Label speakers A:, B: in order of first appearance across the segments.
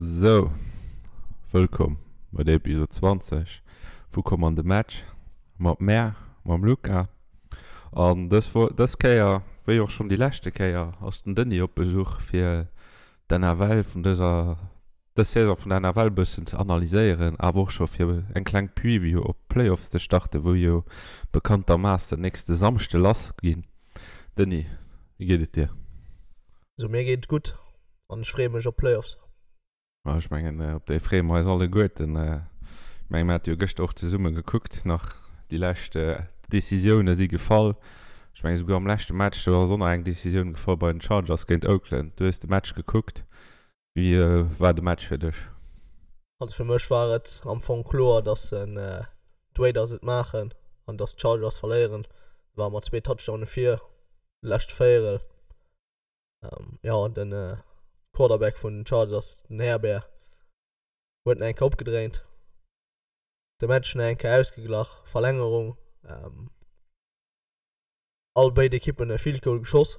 A: Sou, wëllkomm bei der Episode 20 vu Komm an de Match mat mär, mam Luca. An dës Wo dës Kéier, wéi och schonn déi leschte Kéier, ass den Denis op Besuch fir d'NFL vun dëser dës Saison vun der NFL bëssen ze analyséieren, awer och scho fir eng kleng Preview op d'Playoffs ze starten, wou jo bekanntermaassen nächste Samschde lass ginn. Denis, wéi geet et dir?
B: Sou, mir geet et gutt an ech freeë mech op d'Playoffs.
A: Ma ech mengen, op déi freeë mer eis alleguerten. Ech mengen, mir hate jo gëschter och zesumme gekuckt nach. Déi lescht Decisioune si gefall. Ech mengen, esouguer am leschte Match, do ass och nach eng Decisioun gefall bei den Chargers géint Oakland. Du hues de Match gekuckt. Wéi war de Match fir dech?
B: Also fir mech war et am Fong kloer, dass d'Raiders et maachen an dass d'Chargers verléieren. War mat zwee Touchdowne vir, lescht Véierel. Jo, den Quarterback vun den Chargers, den Herbert, huet nach eng Kéier opgedréint, de Match nach eng Kéier ausgeglach, Verlängerung, all béid Ekippen e Field Goal geschoss.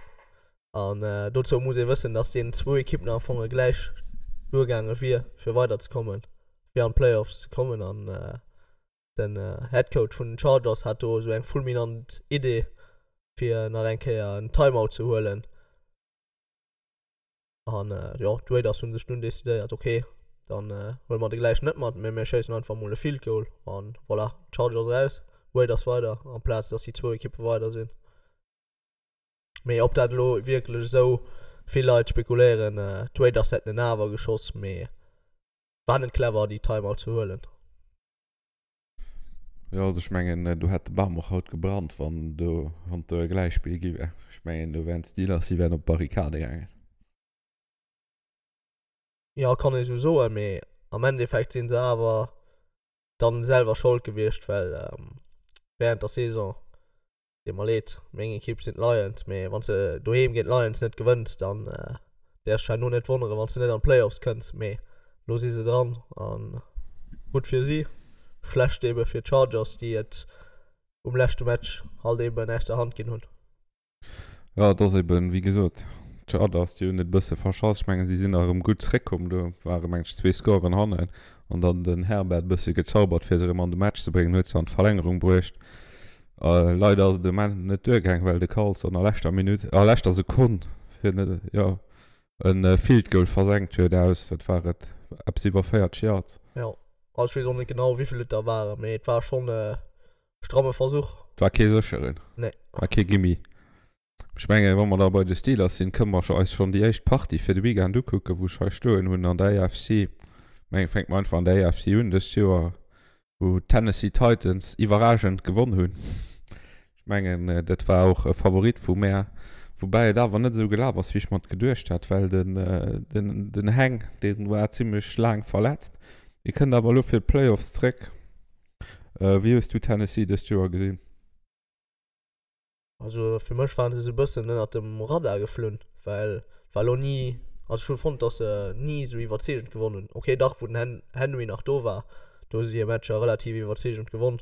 B: An dozou muss ee wëssen, dass deenen zwou Ekippen am Fong gläich duergaange wier, fir weiderzekommen, fir an d'Playoffs ze kommen. An Den Head Coach vun den Chargers hat do esou eng fulminant Idee fir nach eng Kéier en Timeout ze huelen. An jo, d'Raiders hunn sech dunn decidéiert, ok, dann huele mer de gläich net mat, mee mir schéissen einfach mol e Field Goal an voilà, Chargers eraus, Raiders weider, amplaz dass déi zwou Ekippe weider sinn. Mee ob dat elo wierklech esou, vill Leit spekuléieren, d'Raiders hätten en awer geschoss, mee war net clever déi Timeout ze huelen.
A: Jo, also ech mengen, do hätt de Bam och haut gebrannt, wann do, wann do e Gläichspill gi wär. Ech mengen, do wären d'Steelers, déi wären op d'Barrikade gaangen.
B: Jo, kann ee sou soen, mee am Endeffekt si se awer dann selwer Schold gewiescht, well während der Saison Deet mer leed, meng Ekipp sinn d'Lions, mee wann s de doheem géint d'Lions net gewënns, dann däerfs dech herno net wonneren, wann s de net an d'Playoffs kënns. Mee elo si se dran a gutt fir si, schlecht ebe fir d'Chargers, déi et um leschte Match halt eben aus der Hand ginn hunn.
A: Jo, et ass eben, wéi gesot, d'Chargers, déi hunn et e bësse verschass. Ech mengen, si sinn nach erëm gutt zréckkomm, do ware meng ech zwee Scoren hannen an dann den Herbert e bësse gezaubert, fir se erëm an de Match ze bréngen, huet se an d'Verlängerung bruecht. Leider ass et um Enn net duergaang, well de Carlson a leschter Minutt, a leschter Sekonn, fir net, jo, e Field Goal versenkt huet aus, wat war et, eppes iwwer 40 Yards.
B: Jo, also ech weess och net genau wéivill et der waren, mee et war schonn e stramme Versuch.
A: Et war kee sécheren.
B: Nee.
A: War kee Gimme. Ech mengen, wa mer da bei de Steelers sinn, kënne mer eis schonn déi éischt Partie fir de Weekend ukucken, wou ech hei stoen hunn an der AFC. Mengen, fänke mer einfach an der AFC un dëst Joer, wou d'Tennessee Titans iwwerragend gewonn hunn. Ech mengen, dat war och e Favorit vu mär, woubäi et awer net esou gelaf ass, wéi ech mer et geduecht hat, well den, den, den Heng, dee war zimmlech laang verletzt. Dee kënnt awer elo fir d'Playoffs zréck. Wéi hues du Tennessee dëst Joer gesinn?
B: Also fir mech waren se sou bëssen ënnert dem Radar geflunn, well et war lo ni, also ech hu fonnt dass se ni sou iwwerzeegend gewonn hunn. Ok dach wou den Hen Henry nach do war, do hu se hir Matcher relativ iwwerzeegend gewonn,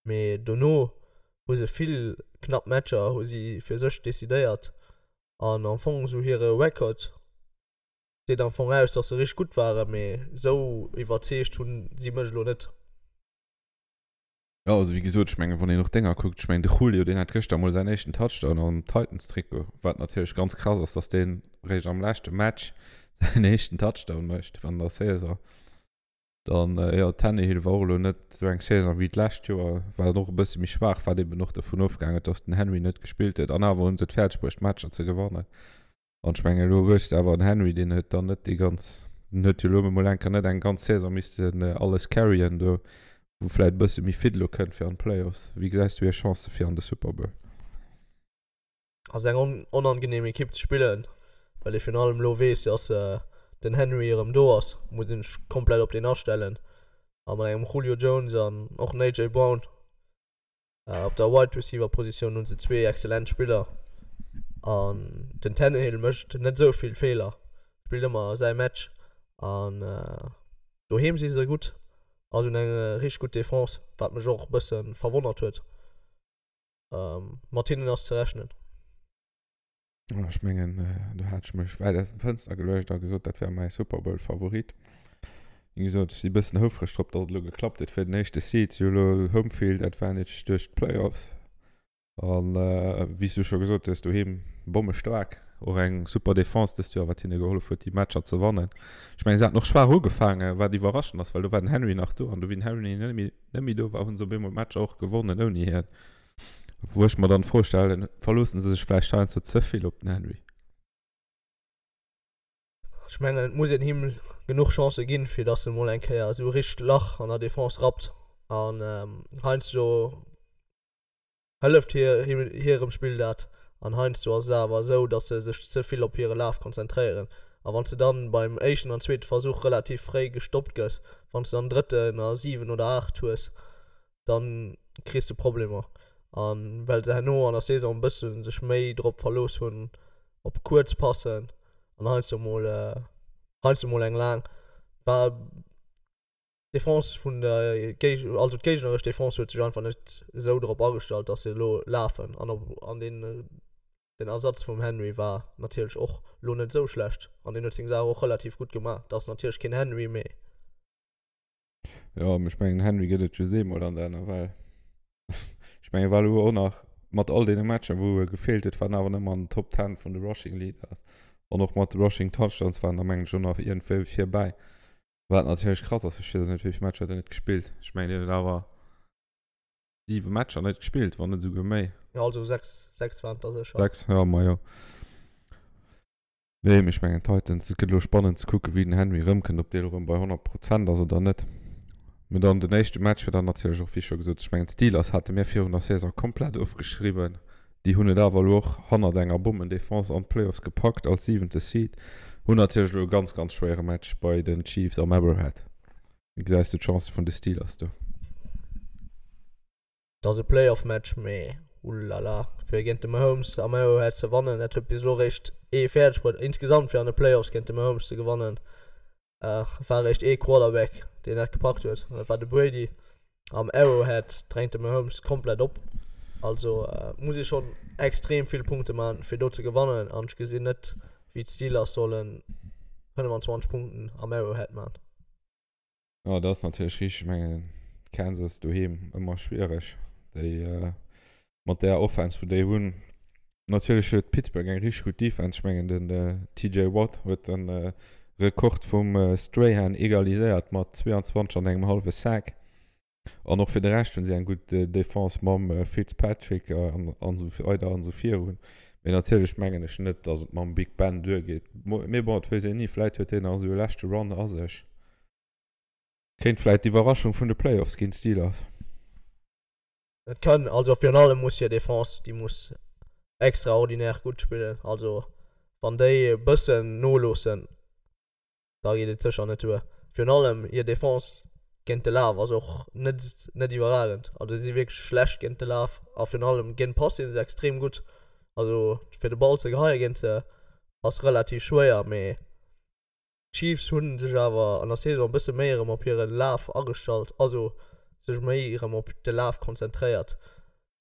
B: mee dono hu se vill knapp Matcher hu si fir sech decidéiert an am Fong sou hire Record seet am Fong aus dass se richteg gutt waren, mee sou iwwerzeegt hunn si mech elo net.
A: Jo, also wéi gesot, ech mengen, wann een och Dénger kuckt, ech mengen de Julio, deen hat gëschter emol säin éischten Touchdown am Titans-Trikot, wat natierlech ganz krass ass, dass deen eréischt am leschte Match säin éischten Touchdown mécht an der Saison. Dann, jo, Tannehill war och elo net esou eng Saison wéi d'lescht Joer, war och e bësse méi schwaach, wat eben och dovun ofgaangen huet, dass den Henry net gespillt huet. An awer hunn se et fäerdeg bruecht, d'Matcher ze gewannen. An ech mengen, elo hues de awer en Henry, deen huet dann net déi ganz, deen huet jo elo emol eng Kéier net eng ganz Saison missten alles carryen do, wou vläicht e bësse méi fit elo kënnt fir an d'Playoffs. Wéi gesäis du hir Chancë fir an de Super Bowl?
B: Ass eng onangenehm Ekipp ze spillen, well ee virun allem elo weess, dass den Henry erëm do ass, muss een sech komplett op deen astellen. A mat engem Julio Jones an och den AJ Brown Op der Wide Receiver Positioun hunn se zwee excellent Spiller an den Tannehill mécht net esou vill Feeler, spillt ëmmer säi Match an doheem si se gutt a se hunn eng richteg gutt Defense, wat mech och e bësse verwonnert huet. Mat hinnen ass ze rechnen.
A: Ech mengen, do hat ech mech wäit aus dem Fënster geluecht a gesot, dat wär mäi Super Bowl Favorit. Wéi gesot, ech si bëssen houfreg drop, datt et elo geklappt huet fir den éischte Seed. Si hu elo Home Field Advantage duerch d'Playoffs. An wéi s du scho gesot hues, doheem bommestaark. Och eng super Defense dëst Joer, wat hinne gehollef huet, déi Matcher ze wannen. Ech mengen, se haten och schwaach ugefaangen, wat iwwerraschend ass, well do war den Henry nach do. An du wéi den Henry net méi, net méi do war, hu se op eemol d'Matcher och gewonnen ouni hien. Wou ech mer dann d'Fro stellen, verloossen se sech vläicht heiansdo ze vill op den Henry?
B: Ech mengen et muss een him genuch Chancë ginn, fir datt e mol eng Kéier esou e richtegt Lach an der Defense rappt. An heiansdo hëlleft hirem Spill dat an heiansdo ass et awer esou, datt se sech ze vill op hire Laf konzentréieren. A wann s de dann beim éischten an zweete Versuch relativ fréi gestoppt gëss, wann s de dann drëtten a 7 oder 8 hues, dann kriss de Problemer. An well se herno an der Saison e bëssen sech méi drop verlooss hunn op kuerz Passen an heiansdo mol heiansdo mol eng laang, war d'Defense vun der Géig also d'géigneresch Defense huet sech einfach net esou drop agestallt, dass se elo lafen an op an den den Ersatz vum Henry war natierlech och lo net esou schlecht an deen huet seng Saach och relativ gutt gemaach. Dat ass natierlech keen Henry, mee.
A: Jo, mee ech mengen den Henry gëtt et just eemol an der NFL. Ech mengen e war elo och nach mat all deene Matcher wou e gefeelt huet, war en awer nëmmen an den Top 10 vun de Rushing Leaders an och mat de Rushing Touchdowns war en da mengen ech och nach iergendwéi virbäi. Wat natierlech krass ass, ech weess och net wéi vill Matcher huet en net gespillt. Ech mengen deen huet awer 7 Matcher net gespillt, wann net esouguer méi.
B: Jo, also 6, 6 waren et der sécher.
A: 6, jo, majo. Nee, mee ech mengen d'Titans, et gëtt elo spannend ze kucken, wéi den Henry erëmkënnt, ob dee elo erëm bei 100 Prozent ass oder net. Mee dann den éischte Match war dann natierlech och, wéi scho gesot, ech mengen d'Steelers hate mir virun der Saison komplett ofgeschriwwen. Déi hunn et awer elo och hannert enger Bommendefense an d'Playoffs gepackt als siwente Seed. Hunn natierlech elo e ganz, ganz schwéiere Match bei den Chiefs am Arrowhead. Wéi gesäis du d'Chancë vun de Steelers do?
B: Et ass e Playoff-Match, mee ullala, fir géint de Mahomes am Arrowhead ze wannen, dat huet bis elo réischt ee fäerdeg bruet. Insgesamt fir an de Playoffs géint de Mahomes ze gewannen, war réischt ee Quarterback, deen dat gepackt huet, an dat war de Brady. Am Arrowhead drängt de Mahomes komplett op, also muss ee schonn extrem vill Punkte man, fir do ze gewannen, an ech gesinn net, wéi d'Steelers solle 25 Punkten am Arrowhead man.
A: Jo, dat ass natierlech richteg. Ech mengen, Kansas doheem ëmmer schwiereg. Déi mat där Offense, wou déi hunn. Natierlech huet Pittsburgh eng richteg gutt Defense. Ech mengen, den TJ Watt huet de Rekord vum Strahan egaliséiert mat 22 an engem hallwe Sack. An och fir de Rescht hunn si eng gutt Defense mam Fitzpatrick an esou weider an esou virun. Mee natierlech mengen ech net, datt et mam Big Ben duergeet. Mee bon, et weess een ni, vläit huet deen nach esou e leschte Run a sech. Kéint vläit d'Iwwerraschung vun de Playoffs ginn, d'Steelers.
B: Et kann, also virun allem muss hir Defense, déi muss extraordinär gutt spillen. Also wann déi e bëssen noloossen, da geet et sécher net duer. Virun allem hir Defense géint de Laf ass och net net iwwerragend. Also si si wierklech schlecht géint de Laf a virun allem géint d'Pass si se extrem gutt. Also fir de Ball ze geheie géint se ass relativ schwéier, mee d'Chiefs hu sech awer an der Saison e bësse méi erëm op hire Laf agestallt, also sech méi erëm op de Laf konzentréiert.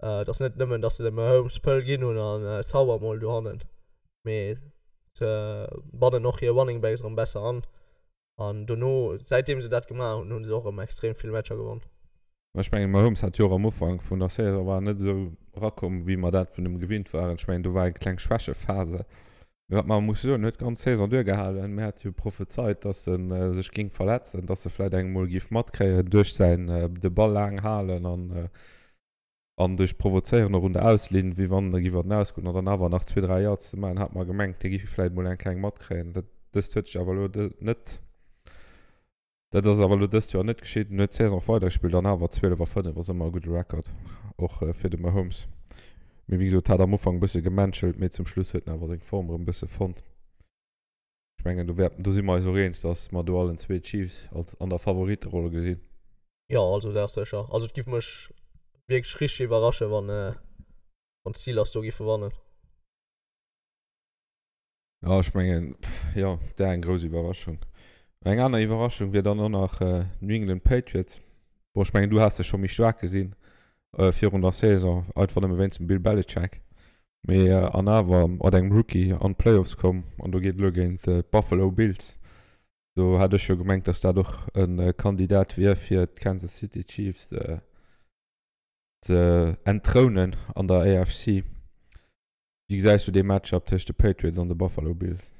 B: Et ass net nëmmen, datt se dem Mahomes d'Pëll ginn hunn an zauber mol dohannen, mee se bannen och hir Running Backs erëm besser an. An dono, säitdeem se dat gemaach hunn, hu se och erëm extrem vill Matcher gewonn.
A: Ech mengen, Mahomes hat jo och am Ufank vun der Saison war en net esou erakomm, wéi mer dat vun him gewinnt waren. Ech mengen, do war eng kleng Schwächephase. Mee wat mer musse soen, en huet d'ganz Saison duergehalen. Mir hate jo prophezeit, dass e sech géing verletzen, dass e vläicht eng emol géif matkréien duerch säin de Ball laang halen an an duerch Provozéieren och un der Auslinn, wéi wann e géif an den Aus goen an dann awer nach zwee, dräi Yards ze maachen, hat mer gemengt, hie géif vläicht emol eng kleng matkréien. Dat dëst huet sech awer elo net. Dat ass awer elo dëst Joer net geschitt. En huet d'Saison och weidergespillt an awer 12 a 5 ass ëmmer e gudde Record, och fir de Mahomes. Mee wéi gesot, hat am Ufank e bësse gemenschelt, mee zum Schluss huet en awer seng Form erëm e bësse fonnt. Ech mengen, do wäerten, do si mer eis och eens, datt mer do allen zwee d'Chiefs als an der Favoritteroll gesinn.
B: Jo, also dat ass sécher. Also et giff mech wierklech richteg iwwerrasche wann wann d'Steelers do giffe wannen.
A: Jo, ech mengen, jo, dat wär eng grouss Iwwerraschung. Eng aner Iwwerraschung wier dann och nach New England Patriots. Bon, ech mengen, du has se scho méi staark gesinn virun der Saison, einfach nëmme wéinst dem Bill Belichick. Mee an awer mat engem Rookie an d'Playoffs komm an do geet elo géint d'Buffalo Bills. Do hat ech jo gemengt, datt dat och e Kandidat wier fir d'Kansas City Chiefs ze entthrounen an der AFC. Wéi gesäis du dee Matchup tëscht de Patriots an de Buffalo Bills?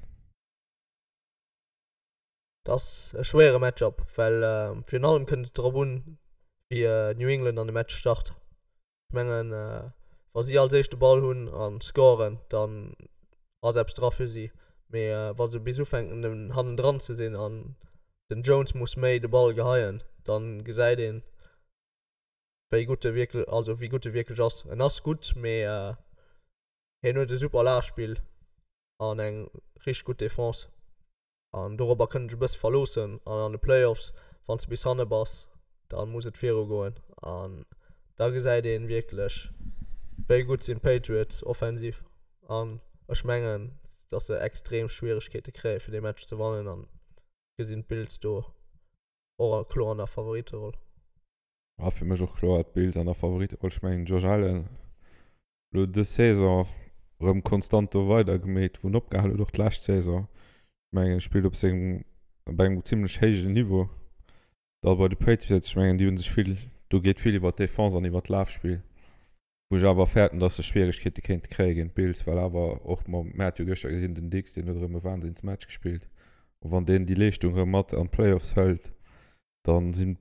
B: Dat ass e schwéiere Matchup, well virun allem kënnt et drop un, wéi New England an de Match start. Ech mengen, wa si als éischt de Ball hunn a scoren, dann ass eppes dra fir si. Mee wa se bis ufänken hannendran ze sinn an den Jones muss méi de Ball geheien, da gesäit een, wéi gutt e wierklech, also wéi gutt e wierklech ass. En ass gutt, mee hien huet e super Lafspill an eng richteg gutt Defense. An dorobber kënnt ech e bësse verloossen. An an de Playoffs, wann s de bis hanne bass, da muss et viru goen. An da gesäit ee wierklech, wéi gutt sinn d'Patriots offensiv. An ech mengen, datt se extrem Schwieregkeete kréie fir dee Match ze wannen. An gesinn d'Bills do och kloer an der Favoritteroll.
A: A fir mech och kloer d'Bills an der Favoritteroll. Ech mengen, Josh Allen elo dës Saison erëm konstant do weider gemeet wou en opgehal huet och d'lescht Saison. Ech mengen e spillt op sengem op engem zimlech héijen Niveau. Da bei de Patriots, ech mengen déi hu sech vill, do geet vill iwwer d'Defense an iwwer d'Lafspill, wou ech awer fäerten, datt se Schwieregkeete kéinte kréie géint d'Bills, well awer och mam, mir hat jo gëschter gesinn, den Diggs deen huet erëm e Wahnsinnsmatch gespillt a wann deen déi Leeschtung erëm mat an d'Playoffs hëlt, Dann sinn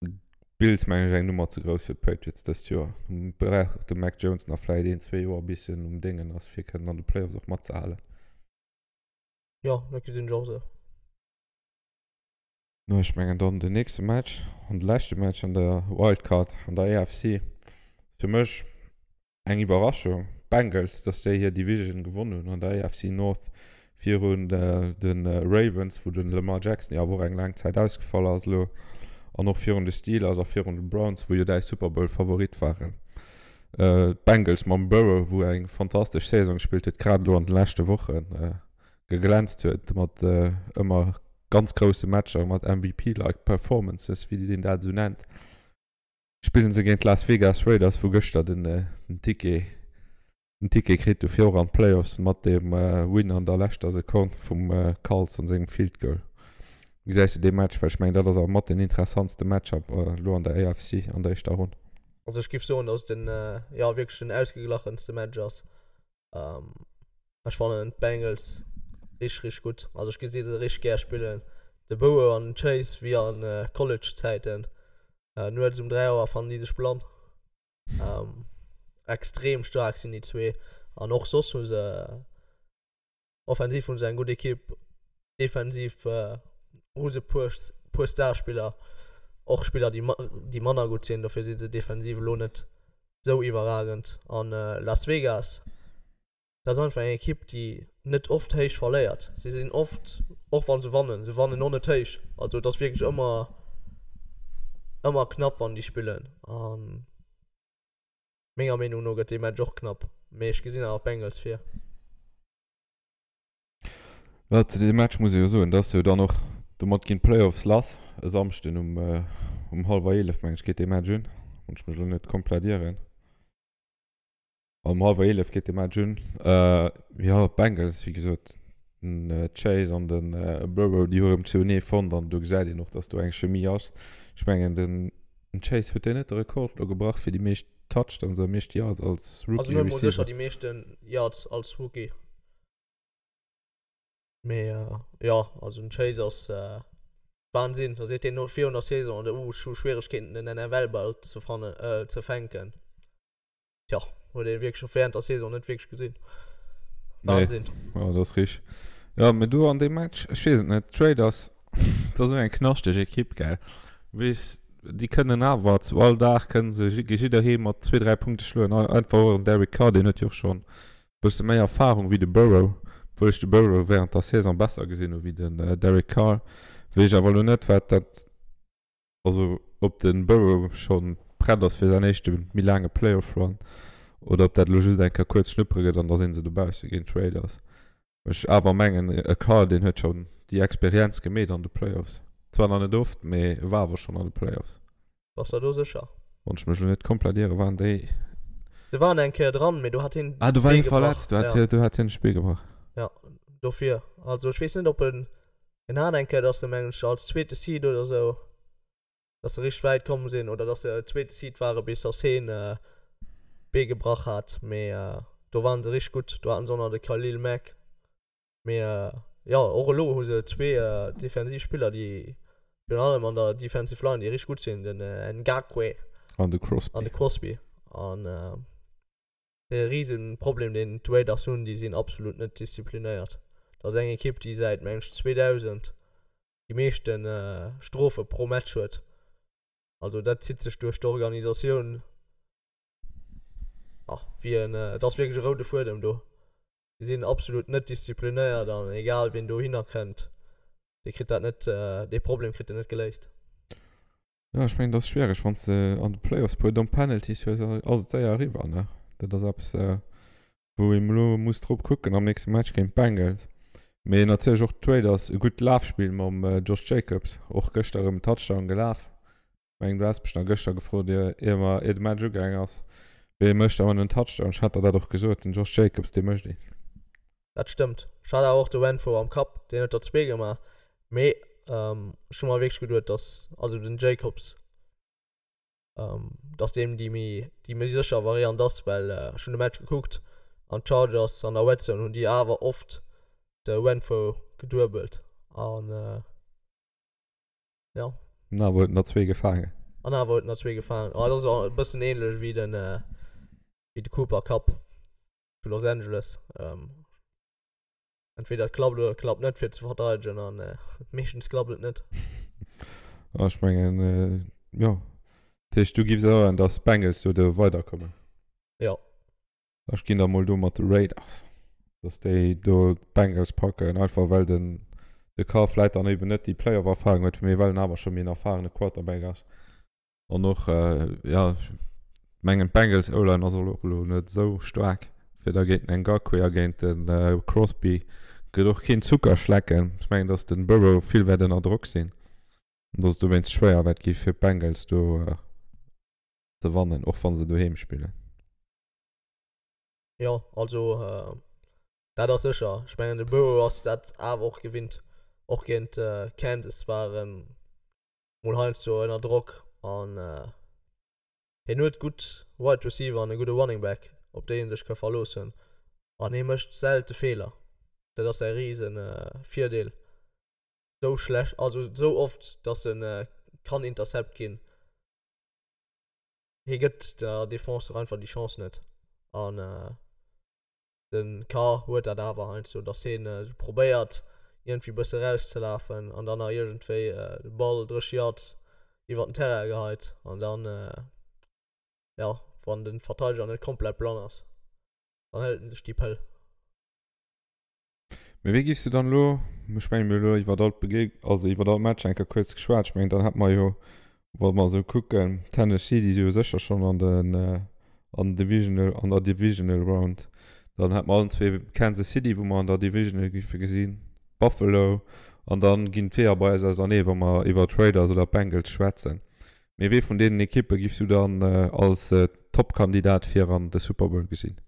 A: d'Bills mengen ech eng Nummer ze grouss fir d'Patriots dëst Joer. Brauch de Mac Jones nach vläit een, zwee Joer bis en um Déngen ass fir kënnen an de Playoffs och matzehalen.
B: Jo, dat gesinn ech och esou.
A: No ech mengen dann den nächste Match an de leschte Match an der Wildcard an der AFC ass fir mech Eng Iwwerraschung, d'Bengals, dass déi hir Division gewonn hunn an der AFC North virun de Ravens, wou de Lamar Jackson jo awer och eng laang Zäit ausgefall ass elo, an och virun de Steelers a virun de Browns, wou jo däi Super Bowl Favorit waren. D'Bengals mam Burrow, wou eng fantastesch Saison gespillt huet, grad elo an de leschte Woche geglänzt huet mat ëmmer ganz grousse Matcher, mat MVP-like Performances, wéi een dat esou nennt. Spillen se géint d'Las Vegas Raiders, wou gëschter den Ticket den Ticket kritt hu fir och an d'Playoffs mat dem Win an der leschter Sekonn vum Carlson sengem Field Goal. Wéi gesäis de dee Match? Well ech mengen dat ass awer mat den interessantste Matchup elo an der AFC an der éischter Ronn.
B: Also ech giff soen, dass et den jo wierklech den ausgeglachenste Match ass. Ech fannen d'Bengals richteg richteg gutt. Also ech gesi se richteg gär spillen. De Burrow an den Chase wéi an College Zäiten. Nuets um 3 Auer fannen déi sech blann. Extrem staark sinn déi zwee an och soss hu se offensiv hu se eng gutt Ekipp, defensiv hu se puer puer Starspiller, och Spiller déi déi manner gutt sinn, dofir si se defensiv elo net sou iwwerragend. An Las Vegas, dat ass einfach eng Ekipp déi net oft héich verléiert. Si sinn oft, och wa se wannen, se wannen och net héich. Also et ass wierklech ëmmer ëmmer knapp wann déi spillen an. Menger Meenung no gëtt dee Match och knapp, mee ech gesinn awer d'Bengals vir.
A: Jo, zu deem Match muss ee jo soen, dass jo dann och domat ginn d'Playoffs lass. E Samschden um um hallwer 11 meng ech geet dee Match un, wann ech mech elo net komplett ieren. Um hallwer 11 geet de Match un. Jo, d'Bengals, wéi gesot, den Chase an de Burrow, déi hu erëm zouenee fonnt an do gesäit een och, dass do eng Chemie ass. Ech mengen, den Chase, huet deen net de Rekord elo gebrach fir déi meescht Touchdowns a meescht Yards als
B: Rookie Receiver? Also en huet mol sécher déi meeschten Yards als Rookie. Mee jo, also den Chase ass Wahnsinn. Da seet deen no virun der Saison, uh, ech hu Schwieregkeeten den NFL-Ball ze fannen, ze fänken. Tja, huet ee wierklech och während der Saison net wierklech gesinn.
A: Wahnsinn. Nee. Ja, dat ass richteg. Ja, mee do an deem Match, ech weess et net, d'Raiders, dat ass esou eng knaschteg Ekipp, gell. Weess, déi kënnen awer zu all Dag kënnen se jidderee mat zwee, dräi Punkte schloen. Einfach och en Derek Carr, deen huet jo och schonn e bësse méi Erfarung wéi de Burrow, obwuel ech de Burrow während der Saison besser gesinn hu wéi den Derek Carr. Weess ech awer elo net, wat dat Also ob de Burrow scho prett ass fir säin éischte méi laange Playoff-Run oder ob dat elo just eng Kéier kuerz schnuppere gëtt an da si se dobausse géint d'Raiders. Ech awer mengen e Carr deen huet schonn déi Experienz gemeet an de Playoffs. Zwar nach net oft, mee e war awer schonn an de Playoffs.
B: Bass der do sécher?
A: Wann ech mech elo net komplett iere waren déi.
B: Se waren eng Kéier dran, mee do hat hien
A: Ah, do war hie verletzt, do hat hie, do hat hien sech d'Bee gebrach.
B: Ja, dofir. Also ech weess net, ob en, en hat eng Kéier, dass se mengen ech als zweete Seed oder sou, dass se richteg wäit komm sinn oder dass se zweete Seed ware bis dass hien d'Bee gebrach hat, mee do waren se richteg gutt. Do haten se och nach de Khalil Mack. Mee jo, och elo hu se zwee defensiv Spiller, déi virun allem an der Defensive Line, déi richteg gutt sinn, den Ngakoue
A: An de Crosby.
B: an de Crosby. An de Risenproblem, deen d'Raiders hunn, déi sinn absolut net disziplinéiert. Dat ass eng Ekipp, déi säit, meng ech, 2000 déi meeschte Strofe pro Match huet. Also dat zitt sech duerch d'Organisatioun, wéi en, et ass wierklech e roude Fuedem do. Déi sinn absolut net disziplinéiert an egal wien dohinner kënnt, dee kritt dat net, dee Problem kritt en net geléist.
A: Jo, ech mengen, dat ass schwiereg, wann s de an de Playoffs puer domm Penalties hues, ass et séier eriwwer, ne? Dat ass eppes, wou een elo muss drop kucken am nächste Match géint d'Bengals. Mee natierlech och d'Raiders, e gutt Lafspill mam Josh Jacobs, och gëschter erëm en Touchdown gelaf. Mengen du has mech nach gëschter gefrot ier ier mer ier de Match ugaang ass, wee mécht awer en Touchdown. Ech hat der dat och gesot, den Josh Jacobs dee mécht een.
B: Dat stëmmt. Ech hat awer och de Renfrow am Kapp, deen huet der zwee gemaach. Mee ech hu mer wierklech geduet, dass also den Jacobs, dass deem déi méi déi méi sécher Variant ass, well ech hunn de Match gekuckt an d'Chargers an der Red Zone hunn déi awer oft de Renfrow geduebelt an Ja.
A: An awer huet en der zwee gefaangen.
B: An awer huet en der zwee gefaangen. Ah, dat ass e bëssen ähnlech wéi den, wéi de Cooper Kupp zu Los Angeles. Ähm, entweder et klappt oder et klappt net fir ze verteidegen an äh, meeschtens klappt et net.
A: Ah, ech mengen, äh, jo. Dat heescht, du giffs soen, dass d'Bengals do do weiderkommen?
B: Jo.
A: Ech ginn da mol do mat de Raiders, dass déi do d'Bengals packen, einfach well den de Carr vläit dann eben net déi Playoff-Erfahrung huet, mee well en awer scho méi en erfahrene Quarterback ass. An och, jo, ech mengen d'Bengals O-Line ass och elo net esou staark, fir da géint den Ngakoue a géint de Crosby gëtt och keen Zucker schlecken. Ech mengen, dass den Burrow vill wäert ënner Drock sinn an dass et dowéinst schwéier wäert gi fir d'Bengals do ze wannen, och wa se doheem spillen.
B: Jo, also dat ass sécher. Ech mengen de Burrow ass dat awer och gewinnt. Och géint Kansas war en mol heiansdo ënner Drock an hien huet gutt Wide Receiver an e gudde Running Back, op déi en sech ka verloossen an hie mécht selte Feeler. Dat ass säi rise Virdeel. Sou schlecht, also sou oft, datt en kann intercept ginn. Hie gëtt der Defense och einfach déi Chance net. An de Carr huet dat awer heiansdo, datt hien esou probéiert, iergendwéi e bësse erauszelafen an dann nach iergendwéi de Ball 30 Yards iwwer den Terrain geheit. An dann, jo, wann de Verteideger net komplett blann ass, dann hëlt en sech déi Pëll.
A: Mee wéi giffs du dann elo, ech mengen mir hu elo iwwert all d'Begeg, also iwwert all Match eng Kéier kuerz geschwat, ech mengen dann hätt mer jo, wa mer esou kucken, Tennessee, déi si jo sécher schonn an den, an den Divisional, an der Divisional Round, dann hätt mer allen zwee Kansas City, wou mer an der Divisional giffe gesinn, Buffalo, an dann ginn d'Weeër bei eis ausernee wa mer iwwer d'Raiders oder d'Bengals schwätzen. Mee wee vun deenen Ekippe giffs du dann als Toppkandidat fir an de Super Bowl gesinn?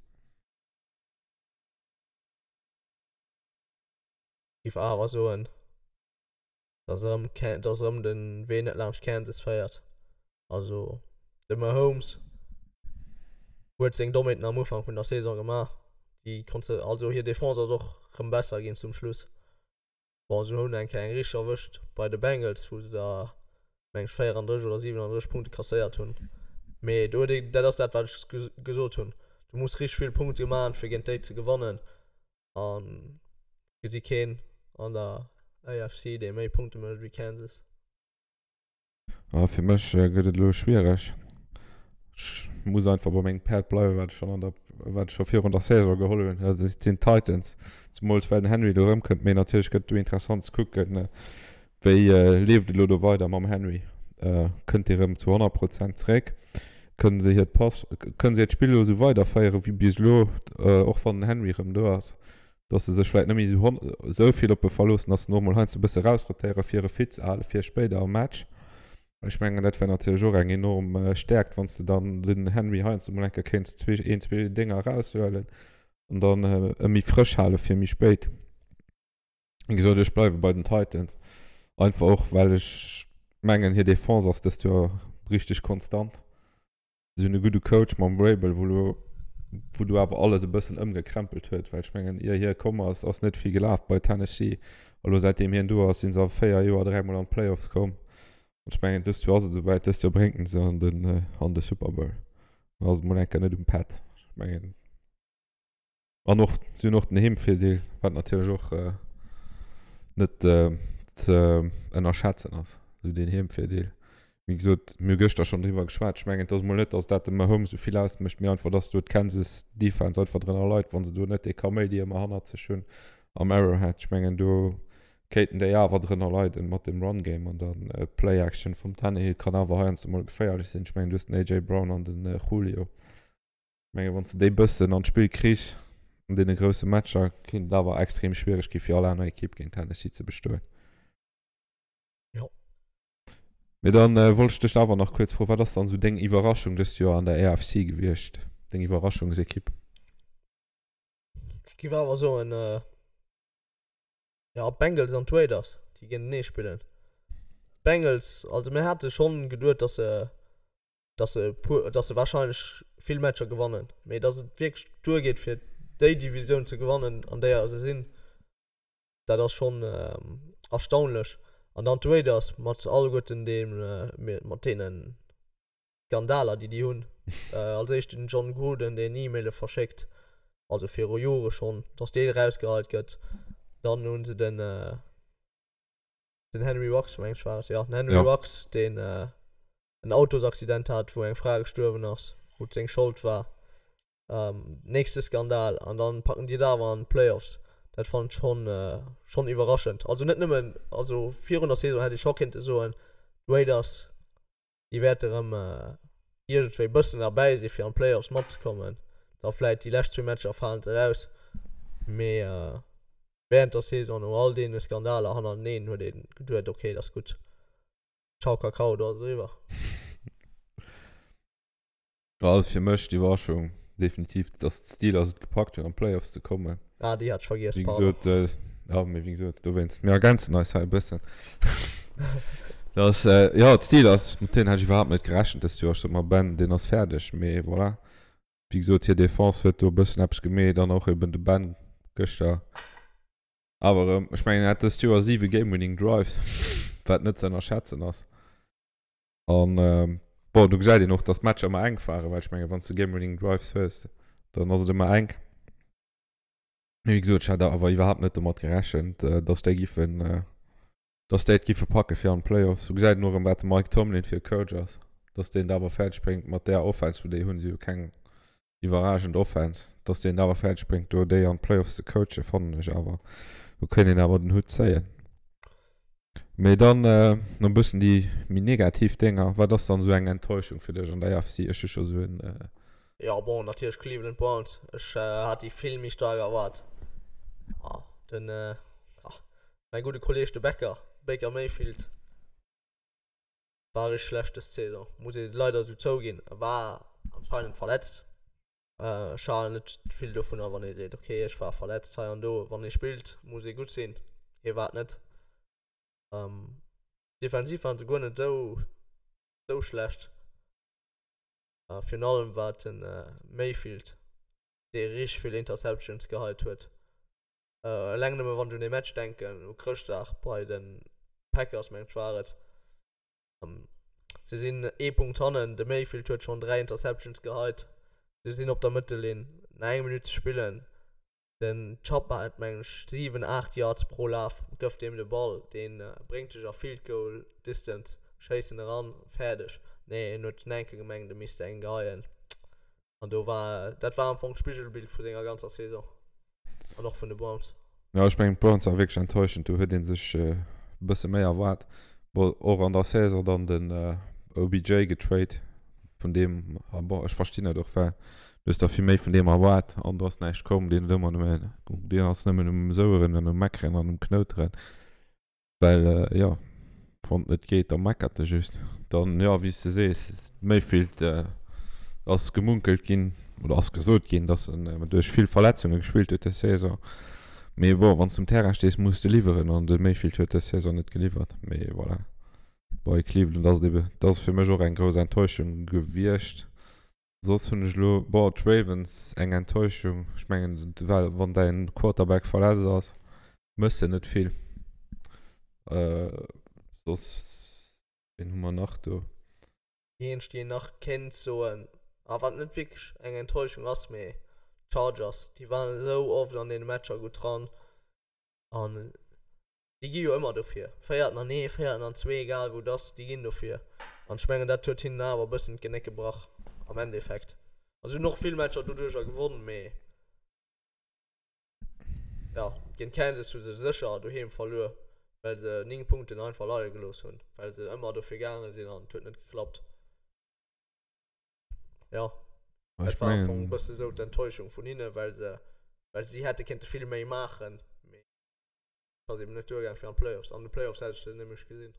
B: Giff awer soen dass erëm dass erëm den Wee net laanscht Kansas féiert. Also de Mahomes huet seng Dommheeten am Ufank vun der Saison gemaach, déi konnt se also hir Defense ass och rëm besser ginn zum Schluss. Bon, se hunn eng Kéier eng richteg erwëscht bei de Bengals, wou se da meng ech 34 oder 37 Punkte kasséiert hunn. Mee do huet ee, dat ass dat wat ech gesot hunn, du muss richteg vill Punkte maachen, fir géint déi ze gewannen. An gesi keen an der AFC, dee méi Punkte mécht wéi Kansas.
A: Ah, fir mech gëtt et elo schwiereg. Ech muss einfach bei mengem Päerd bleiwen, wat ech schonn an der, wat ech scho virun der Saison geholl hunn. Dat sinn d'Titans. Zemools well den Henry do erëmkënnt. Mee natierlech gëtt et do interessant ze kucken, wéi leeft et elo do weider mam Henry. Kënnt dee rëm zu 100 Prozent zeréck? Kënnen se hiert Pass, kënnen se hiert Spill elo esou weiderféieren wéi bis elo, och wann den Henry rëm do ass? Dass se sech vläit net méi esou vill op e verloossen, dass se och mol heiansdo e bësse rausrotéieren, fir e fit ze halen fir spéider am Match. Ech mengen, dat wär natierlech och eng enorm Stäerkt, wann s de dann den Henry heiansdo mol eng Kéier kéints zwee, een, zwee Dénger eraushuelen an dann e méi frësch hale fir méi spéit. Wéi gesot, ech bleiwe bei den Titans. Einfach och, well ech mengen, hir Defense ass dëst Joer richteg konstant. Si hunn e gudde Coach mam Vrabel, wou elo, wou do awer alles e bëssen ëmgekrempelt huet, well ech mengen, ier hie komm ass, ass net vill gelaf bei Tennessee. A lo säitdeem hien do ass, si se a 4 Joer dräimol an d'Playoffs komm. An ech mengen, dëst Joer ass et esouwäit, dëst Joer bréngt en se an den, an de Super Bowl. Dann ass et mol eng Kéier net um Pätt. Ech mengen. An och, si hunn och den Heemvirdeel, wat natierlech och net ze ënnerschätzen ass, esou deen Heemvirdeel. Wéi gesot, mir hu gëschter schonn driwwer geschwat, ech mengen, et ass emol net, datt dat dem Mahomes esou vill ausmécht, mee einfach, datt do d'Kansas Defense einfach drënner leit, wa se do net dee Kaméidi ëmmer hannert sech hunn am Arrowhead. Ech mengen, do kéinten déi awer drënner leiden mat dem Run Game an dann Play Action vum Tannehill kann awer heiansdo mol geféierlech sinn. Ech mengen, du hues den AJ Brown an den Julio. Menge wann s de déi bëssen an d'Spill kriss an deene grousse Matcher, kéint et awer extrem schwiereg gi fir all aner Ekipp géint Tennessee ze bestoen.
B: Jo.
A: Mee dann äh, wollt ech dech awer nach kuerz froen, wat ass dann esou deng Iwwerraschung dëst Joer an der AFC gewiescht? Deng Iwwerraschungsekipp?
B: Ech giff awer soen, äh, ja, d'Bengals an d'Raiders, déi géintenee spillen. D'Bengals, also mir hate schonn geduet, dass se dass se puer, dass se wahrscheinlech vill Matcher gewannen, mee dass et wierklech duergeet fir déi Divisioun ze gewannen an déier se sinn, dat ass schonn erstaunlech. An dann d'Raiders mat alleguerten deem, mat deene Skandaler déi déi hunn. Als éischt den Jon Gruden deen E-Maile verschéckt, also viru Jore schonn, dass dee erausgeheit gëtt. Dann hu se den den Henry Ruggs meng ech war et, jo den Henry Ruggs deen en Autosaccident hat, wou eng Fra gestuerwen ass, wou et seng Schold war. Ähm, nächste Skandal an dann packen déi et awer an d'Playoffs. Dat fannen ech schonn, schonn iwwerraschend. Also net nëmmen, also virun der Saison hätt ee scho kéinte soen, d'Raiders, déi wäerte rëm iergendwéi bëssen derbäi si fir an d'Playoffs matzekommen. Da vläit déi lescht zwee Matcher falen se eraus, mee während der Saison no all deene Skandaler hannerteneen huet ee geduet, okay, dat ass gutt. Ciao Kakao, do ass et eriwwer.
A: Ja, also fir mech d'Iwwerraschung definitiv, dass d'Steelers et gepackt hunn an d'Playoffs ze kommen.
B: Ah, déi hat ech vergiess,
A: Wéi pardon. gesot, äh, ja, mee wéi gesot, dowéinst, mir ergänzen eis hei e bëssen. Dass, äh, ja, d'Steelers, mat deenen hat ech iwwerhaapt net gerechent dëst Joer. Ech sot mer, Ben, deen ass fäerdeg, mee voilà. Wéi gesot, hir Defense huet do e bëssen eppes gemeet an och eben de Ben gëschter. Awer erëm, ech mengen, en hat dëst Joer 7 Game-Winning Drives, wat net ze ënnerschätzen ass. An bon, do gesäit een och, dass d'Matcher ëmmer enk waren, well ech mengen, wann s de Game-Winning Drives hues, dann ass et ëmmer enk. Mee wéi gesot, ech hat awer iwwerhaapt net domat gerechent, dass déi giffen, dass déi et giffe packe fir an d'Playoffs. Do gesäit een och erëm, wat de Mike Tomlin fir e Coach ass, dass deen et awer fäerdeg bréngt mat där Offense, wou déi hunn, si hu keng iwwerragend Offense, dass deen et awer fäerdeg bréngt do déi an d'Playoffs ze coachen, fannen ech awer, do kéint een awer den Hutt zéien. Mee dann nach e bëssen déi méi negativ Dénger, wat ass dann esou eng Enttäuschung fir dech an der AFC? Ech hu scho sou en.
B: Jo bon, natierlech Cleveland Browns, ech hat déi vill méi staark erwaart. Den, mäi gudde Kolleeg de Becker, Baker Mayfield, War richteg schlecht des Saison, muss ee leider esou zouginn. E war anscheinend verletzt. Ech halen net vill dovunner, wann ee seet, okay, ech war verletzt hei an do. Wann ee spillt, muss ee gutt sinn. Hie war et net. Defensiv waren se guer net esou esou schlecht. Virun allem war et de Mayfield, dee richteg vill Interceptions geheit huet. Eleng nëmme wann ech un dee Match denken, u Chrëschtdag bei de Packers, mengen ech war et. Se sinn ee Punkt hannen, de Mayfield huet schonn 3 Interceptions geheit. Se sinn op der Mëttellinn, nach eng Minutt ze spillen. Den Chubb hat mengen ech 7, 8 Yards pro Laf, gëff deem de Ball, dee bréngt dech a Field Goal Distance, schéiss en eran, fäerdeg. Nee, en huet den enke gemengt, e misst eng geheien. An do war, dat war am Fong d'Spigelbild vu senger ganzer Saison. An och vun de Browns.
A: Jo, ech mengen d'Browns war wierklech enttäuschend. Do huet ee sech e bësse méi erwaart. Bon, och an der Saison dann den OBJ getrade, vun deem, ah bon, ech verstinn et och, well du hues der vill méi vun deem erwaart an do ass näischt komm. Deen huet ëmmer nëmme, deen ass nëmmen um Soueren an um Meckeren an um Knouteren. Well, jo. Wann et net geet, da meckert e just. Dann, jo, wéi s de sees, Mayfield ass gemunkelt ginn oder ass gesot ginn, datt en duerch vill Verletzunge gespillt huet dës Saison. Mee bon, wann s de um Terrain stees, muss de liwweren an de Mayfield huet dës Saison net geliwwert. Mee voilà, bei Cleveland ass et ebe, dat ass fir mech och eng grouss Enttäuschung gewiescht. Soss hunn ech elo, bon, d'Ravens eng Enttäuschung. Ech mengen, well wann däin Quarterback verletzt ass, mëss de net vill. Soss, wien hu mer nach do?
B: Déi eenzeg, déi een nach kéint soen, a wat net wierklech eng Enttäuschung ass, mee d'Chargers, déi waren esou oft an deene Matcher gutt dran an Déi gi jo ëmmer dofir. Féierten an ee, féierten an zwee, egal wou et ass, déi ginn dofir. An ech mengen, dat huet hinnen awer e bëssen d'Genéck gebrach am Endeffekt. Also si hunn och vill Matcher doduercher gewonn, mee jo, géint Kansas hu se sécher doheem verluer, well se 9 Punkten einfach leie gelooss hunn, well se ëmmer dofir gaange sinn an et huet net geklappt. Jo, dat war am Fong e bësse sou d'Enttäuschung vun hinnen, well se, well si hätte kéinte vill méi maachen, mee. Ass eben net duergaang fir an d'Playoffs. An de Playoffs hätt ech se nämlech gesinn.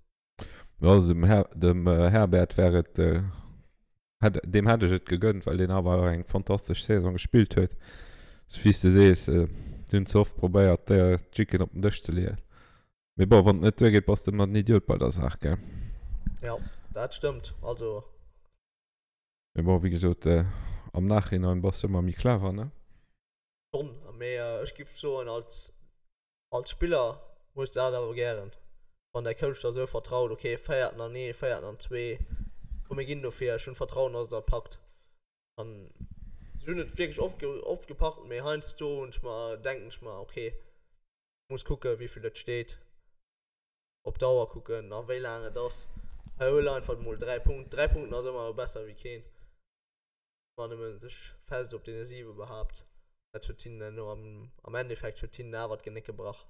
A: Jo, also dem Her dem Herbert wär et hätt deem hätt ech et gegönnt, well deen awer och eng fantastesch Saison gespillt huet. Wéi s de sees, si hunn ze oft probéiert, d'Jicken op den Dësch ze leeën. Mee bon, wann et net duergeet, bass de ëmmer den Idiot bei der Saach, gell?
B: Jo, dat stëmmt. Also.
A: Mee bon, wéi gesot, am Nachhinein bass de ëmmer méi clever, ne?
B: Schonn, mee ech giff soen, als Als Spiller hues de dat awer gären, wann däi Coach der esou vertraut, ok, féierten an ee, féierten an zwee, komm mir ginn dofir, ech hunn Vertrauen, dass der et packt. An si hunn et wierklech oft, oft gepackt, mee heiansdo hunn ech mer, denken ech mer, ok, muss kucken, wéi vill et steet, op d'Auer kucken a wéi laang et ass, hei huel einfach emol 3 Punkten, 3 Punkten ass ëmmer besser wéi keen. Wann nëmmen sech fest op deene 7 behaapt, dat huet hinnen herno am, am Endeffekt huet hinnen awer d'Genéck gebrach.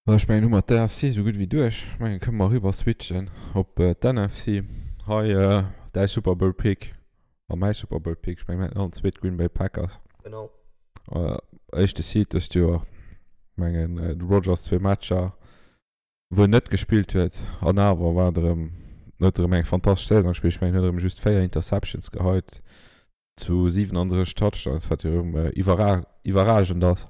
A: Bon, ech mengen hu mer d'AFC esou gutt wéi duerch. Ech mengen kënne mer eriwwer switchen op d'NFC. Hei däi Super Bowl Pick a mäi Super Bowl Pick. Ech mengen mir haten allen zwee d'Green Bay Packers.
B: Genau.
A: Éischte Seed dëst Joer. Ech mengen de Rodgers zwee Matcher. wou en net gespillt huet an awer war et erëm, huet erëm eng fantastesch Saison gespillt. Ech mengen, huet erëm just 4 Interceptions geheit zu 37 Touchdowns, wat jo erëm iwwerra iwwerragend ass.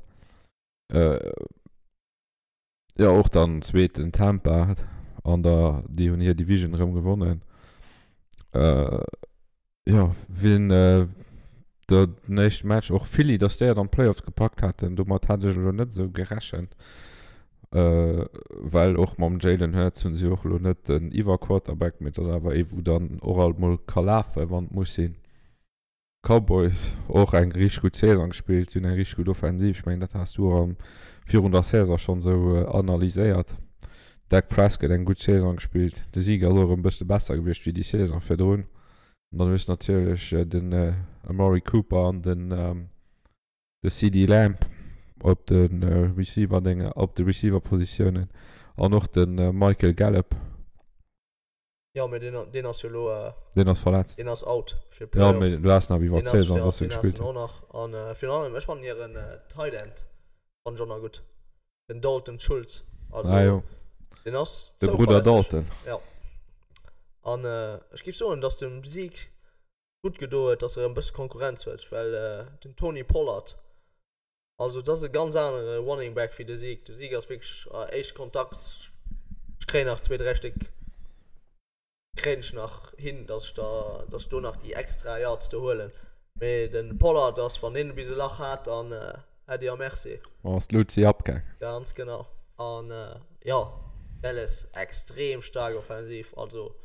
A: Jo, och dann zweeten Tampa an der, déi hunn hir Division erëm gewonnen. Jo, wien den éischte Match och Philly, dass déi et an d'Playoffs gepackt haten, domat hat ech elo net esou gerechent, well och mam Jalen Hurts hunn si och elo net den Iwwer-Quarterback, mee et ass awer ee wou dann och alt mol ka lafen, wann et muss sinn. Cowboys och eng richteg gutt Saison gespillt, si hunn eng richteg gutt Offensiv, ech mengen dat has du och am virun der Saison schonn esou analyséiert. Dak Prescott eng gutt Saison gespillt, de Zeke ass och erëm e bësse besser gewiescht wéi déi Saison virdrun. An dann hues de natierlech den Amari Cooper an den de CeeDee Lamb op de Receiver Dénger, op de Receiver Positiounen an och de Michael Gallup.
B: Jo, mee deen, deen ass jo elo.
A: Deen ass verletzt.
B: Deen ass out
A: fir d'Playoffs. Jo, mee du has nach iwwer d'Saison, dass e gespillt
B: huet. Deen ass och nach. An virun allem, ech fannen hiren Tight End fannen ech och nach gutt. Den Dalton Schultz.
A: Also, ah, jo.
B: Den ass
A: De Bruder Dalton.
B: Ja. An äh, ech géif soen, dass dem Zeke gutt gedo huet, dass er e bësse Konkurrenz huet, well äh, den Tony Pollard, also dat ass e ganz anere Running Back wéi de Zeke. De Zeke ass wierklech äh, éischt Kontakt, ech kréien nach zwee, dräi Stéck kréien ech nach hin, dass ech da, dass ech do nach déi extra Yards do huelen. Mee den Pollard ass, wann deen bis e Lach hat, dann Äddi a Merci.
A: Ass d'Luzi abgaang.
B: Ganz genau. An jo, Dallas extrem staark offensiv. Also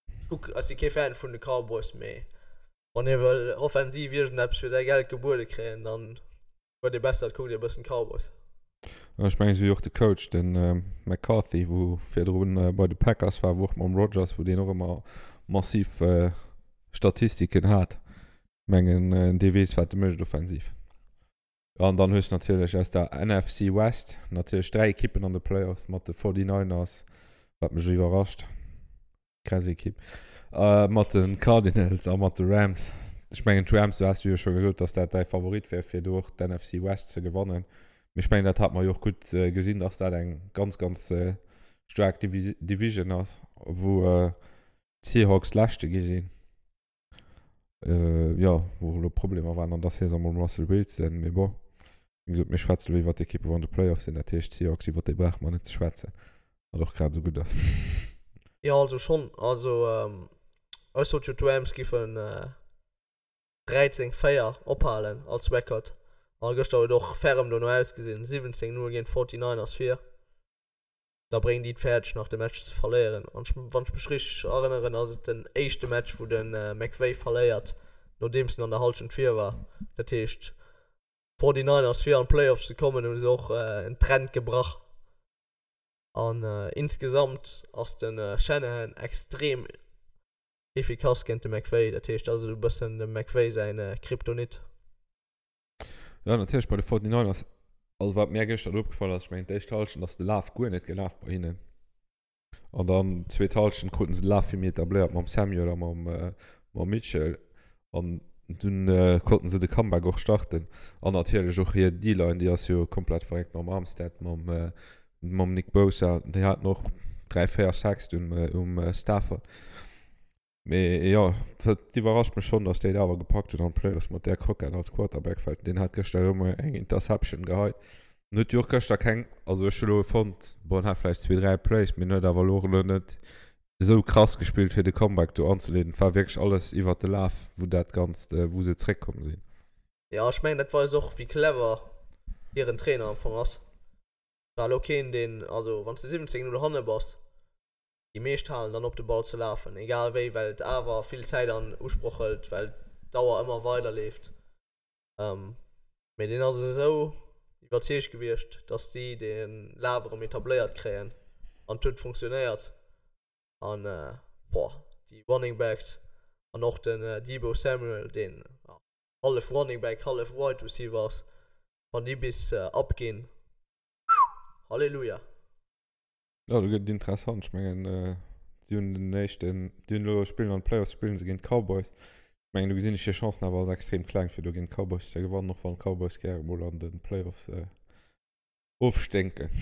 B: ech kuck, ech si kee Fan vun de Cowboys, mee wann ee wëll offensiv iergendeppes fir säi Geld gebuede kréien, dann Huet ee besser, et kuckt ee bëssen d'Cowboys.
A: Ech mengen esou wéi och de Coach, de McCarthy, wou virdrun bei de Packers war, wou och mam Rodgers, wou deen och ëmmer massiv Statistiken hat. Ech mengen dee weess wat e mécht offensiv. An dann hues de natierlech aus der NFC West natierlech 3 Ekippen an de Playoffs mat de 49ers, wat mech iwwerrascht. Krass Ekipp. Äh, mat den Cardinals a mat de Rams. Ech mengen d'Rams, du has jo scho gesot, dass dat däi Favorit wär fir do och d'NFC West ze gewannen. Mee ech mengen, dat hat mer jo och gutt gesinn, dass dat eng ganz, ganz staark Division ass, wou d'Seahawks Leschte gi sinn. Jo, wou elo Problemer waren an der Saison mam Russell Wilson. Mee bon, wéi gesot, mir schwätze elo iwwer d'Ekippe wou an de Playoffs sinn. Dat heescht, d'Seahawks, iwwer déi brauche mer net ze schwätzen, wat och grad esou gutt ass.
B: Jo, also schonn. Also ech sot jo, d'Rams giffen 13, 4 ophalen als Record. A gëschter huet och ferrem dono ausgesinn, 17, 0 géint d'Forty-Niners vir. Da bréngen déi et fäerdeg nach de Match ze verléieren. An ech, wann ech mech richteg erënneren, ass et den éischte Match wou de McVay verléiert, nodeems en an der Hallschent vir war. Dat heescht, d'Forty-Niners fir an d'Playoffs ze kommen, hu se och en Trend gebrach. An insgesamt ass de Shanahan extrem efficace géint de McVay. Dat heescht, dat ass esou e bëssen dem McVay säin Kryptonit.
A: Jo, natierlech bei de 49ers. Also wat mär gëschter do opgefall ass, ech mengen d'éischt Hallschent ass de Laf guer net gelaf bei hinnen. An dann d'zweet Hallschent kruten se de Laf vill méi etabléiert mam Samuel a mam, mam Mitchell. An dunn konnten se de Comeback och starten. An natierlech och hir D-Line, déi ass jo komplett verréckt mam Armstead, mam, mam Nick Bosa. Déi haten och 3, 4 Sacks dunn um Stafford. Mee jo, et iwwerrascht mech schonn, dass déi et awer gepackt hunn an d'Playoffs mat där Crockett als Quarterback, well deen hat gëschter erëm eng Interception geheit. En huet jo och gëschter keng, also ech hu lo fonnt, bon, en hat vläicht zwee, dräi Plays, mee en huet awer elo och elo net esou krass gespillt, fir de Comeback do anzeleeden. Et war wierklech alles iwwert de Laf, wou dat Ganzt, wou se zréckkomm sinn.
B: Jo, ech mengen, dat weist och, wéi clever hiren Trainer am Fong ass. War elo keen, deen, also wann s de 17, 0 hanne bass, Déi meescht halen dann op de Ball ze lafen, egal wéi, well et awer vill Zäit an Usproch hëlt, well d'Auer ëmmer weider leeft. Mee deen ass esou iwwerzeegt gewiescht, datt si de Laf erëm etabléiert kréien an et huet funktionéiert. An boah, déi Running Backs an och den Deebo Samuel, deen hallef Running Back, hallef Wide Receiver ass, wann déi bis abginn, Halleluja!
A: Jo, do gëtt et interessant. Ech mengen, déi hunn den éischten, déi hunn elo spillen an de Playoffs spillen se géint d'Cowboys. Ech mengen, do gesinn ech hir Chancen awer als extrem kleng, fir do géint d'Cowboys ze gewannen, och wann d'Cowboys gäre mol an de Playoffs ofsténken.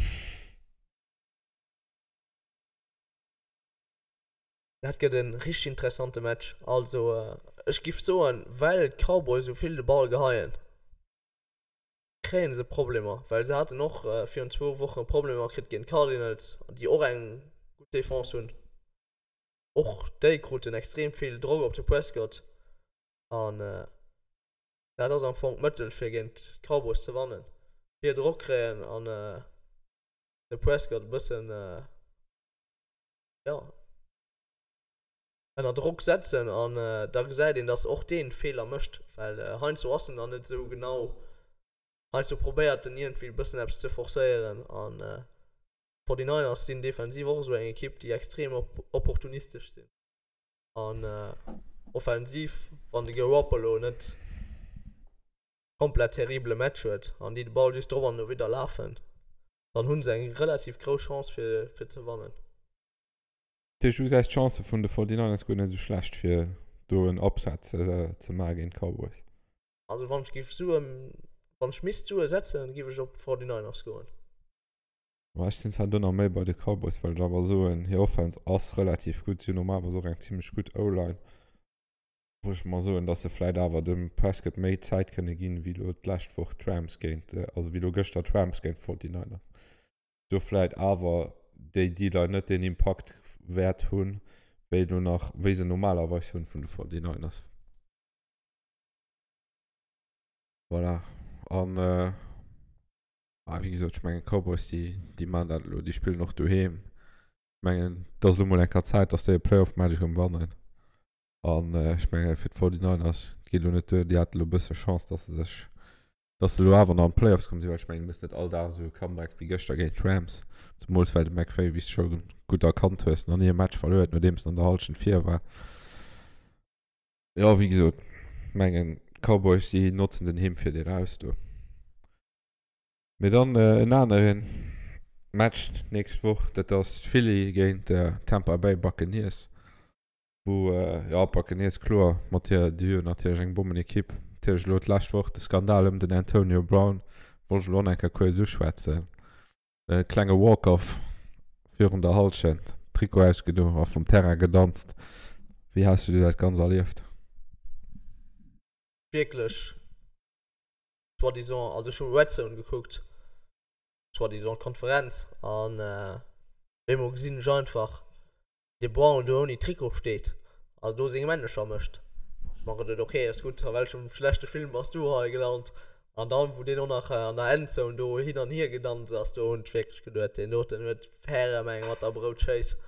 B: Dat gëtt e richteg interessante Match. Also, ech giff soen, well d'Cowboys esou vill de Ball geheien, kréien se Problemer, well se haten och virun zwou Woche Problemer kritt géint d'Cardinals, déi och eng gutt Defense hunn. Och déi kruten extrem vill Drock op de Prescott an dat ass am Fong d'Mëttel fir géint d'Cowboys ze wannen, vill Drock kréien an de Prescott e bëssen, jo. Ënner Drock setzen an da gesäit een, dass och deen Feeler mécht, well heiansdo ass en dann net esou genau, heiansdo probéiert en iergendwéi e bëssen eppes ze forcéieren an d'Forty-Niners sinn defensiv och esou eng Ekipp, déi extrem opportunistesch sinn an offensiv, wann de Garoppolo net komplett terribele Match huet an déi de Ball just drop an dowidder lafen, dann hu se eng relativ grouss Chance fir fir ze wannen.
A: Dat heescht, du gesäis d'Chancë vun de 49ers guer net esou schlecht, fir do en Upset ze maache géint d'Cowboys?
B: Also wann ech géif Suen, wann ech misst Sue setzen, géif ech op d'Forty-Niners goen.
A: Ma ech sinn zwar do nach méi bei de Cowboys, well ech awer soen, hir Offense ass relativ gutt. Si hunn normalerweis och eng zimmlech gutt O-Line, wou ech mer soen, datt se vläit awer dem Prescott méi Zäit kënne ginn, wéi elo d'lescht Woch d'Rams géint, also wéi elo gëschter d'Rams géint d'Forty-Niners. do vläit awer déi D-Line net deen Impakt wäert hunn, wéi elo nach, wéi se normalerweis hunn vun de 49ers. Voilà. An, ah, wéi gesot, ech mengen d'Cowboys, déi, déi maachen dat elo, déi spillen och doheem. Ech mengen, et ass elo mol eng Kéier Zäit, dass déi e Playoff-Match erëm wannen. An ech menge fir d'Forty-Niners, et geet elo net duer, déi hate elo e bësse Chance, dass se sech Dass se elo awer nach an d'Playoffs komm sinn, well ech mengen, du muss net all Dag esou e Comeback wéi gëschter géint d'Rams, zemools well de McVay, wéi s de scho gutt erkannt hues, nach ni e Match verluer huet, nodeems en an der Hallschent vir war. Jo, wéi gesot, mengen d'Cowboys, déi notzen den Heemvirdeel aus do. Mee dann en anere Match d'nächst Woch, dat ass Philly géint Tampa Bay Buccaneers. Wou, jo, Buccaneers, kloer, mat hir, déi hu jo natierlech eng Bommenekipp. Natierlech elo d'lescht Woch de Skandal ëm den Antonio Brown, Wollt ech elo och nach eng Kéier kuerz uschwätzen. E klenge Walk-off virun der Hallschent, Trikot ausgedo a vum Terrain gedanzt. Wéi has du dat Ganzt erlieft?
B: Wierklech soi-disant, also ech hu Red Zone gekuckt, soi-disant d'Konferenz, an op eemol gesinn ech einfach de Brown do ouni Trikot steet a do seng Männecher mécht. Ech mer geduet, ok, ass gutt, a welchem schlechte Film bass du hei gelant? An dann, wou deen och nach an der Endzone do hin an hier gedanzt ass, do hunn ech wierklech geduet, deen doten huet ferrem eng mat der Broutschéiss.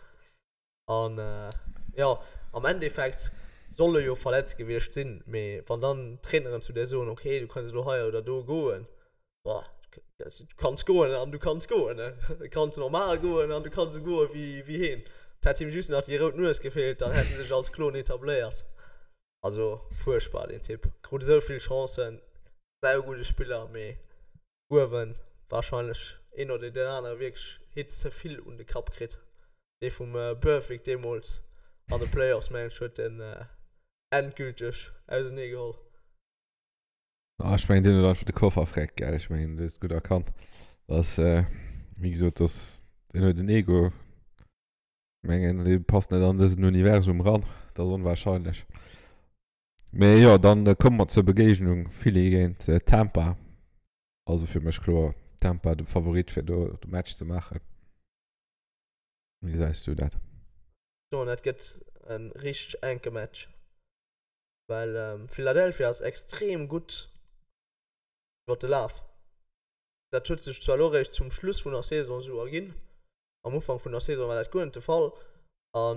B: An jo, am Endeffekt soll e jo verletzt gewiescht sinn, mee wann dann d'Traineren zu dir soen, ok, du kanns elo hei oder do goen, Boah, du kanns goen an du kanns goen. Du kanns normal goen an du kanns esou goe wéi, wéi heen. Et hätt him just nach déi rout Nues gefeelt, dann hätt en sech als Klon etabléiert. Also fuerchtbar deen Typ. Krut esou vill Chancen, saugudde Spiller, mee uewen warscheinlech een oder deen anere wierklech Hit ze vill un de Kapp kritt. Dee vum Burfict deemools an de Playoffs, mengen ech, huet en endgülteg ausenee geholl.
A: Ah, ech mengen, deen huet einfach de Koffer freckt, gell? Ech mengen, du hues et gutt erkannt. Dass, äh, wéi gesot, dass, deen huet en Ego. Ech mengen, dee passt net an dësen Universum ran. Dat ass onwahrscheinlech. Mee jo, dann äh, komme mer zur Begegnung Philly géint äh, Tampa. Also fir mech kloer Tampa de Favorit fir do de Match ze maachen. Wéi gesäis du dat?
B: Soen, dat gëtt e richteg enke Match. Well Philadelphia ass extrem gutt iwwer de Laf. Dat huet sech zwar elo eréischt zum Schluss vun der Saison esou erginn, am Ufank vun der Saison war dat guer net de Fall. A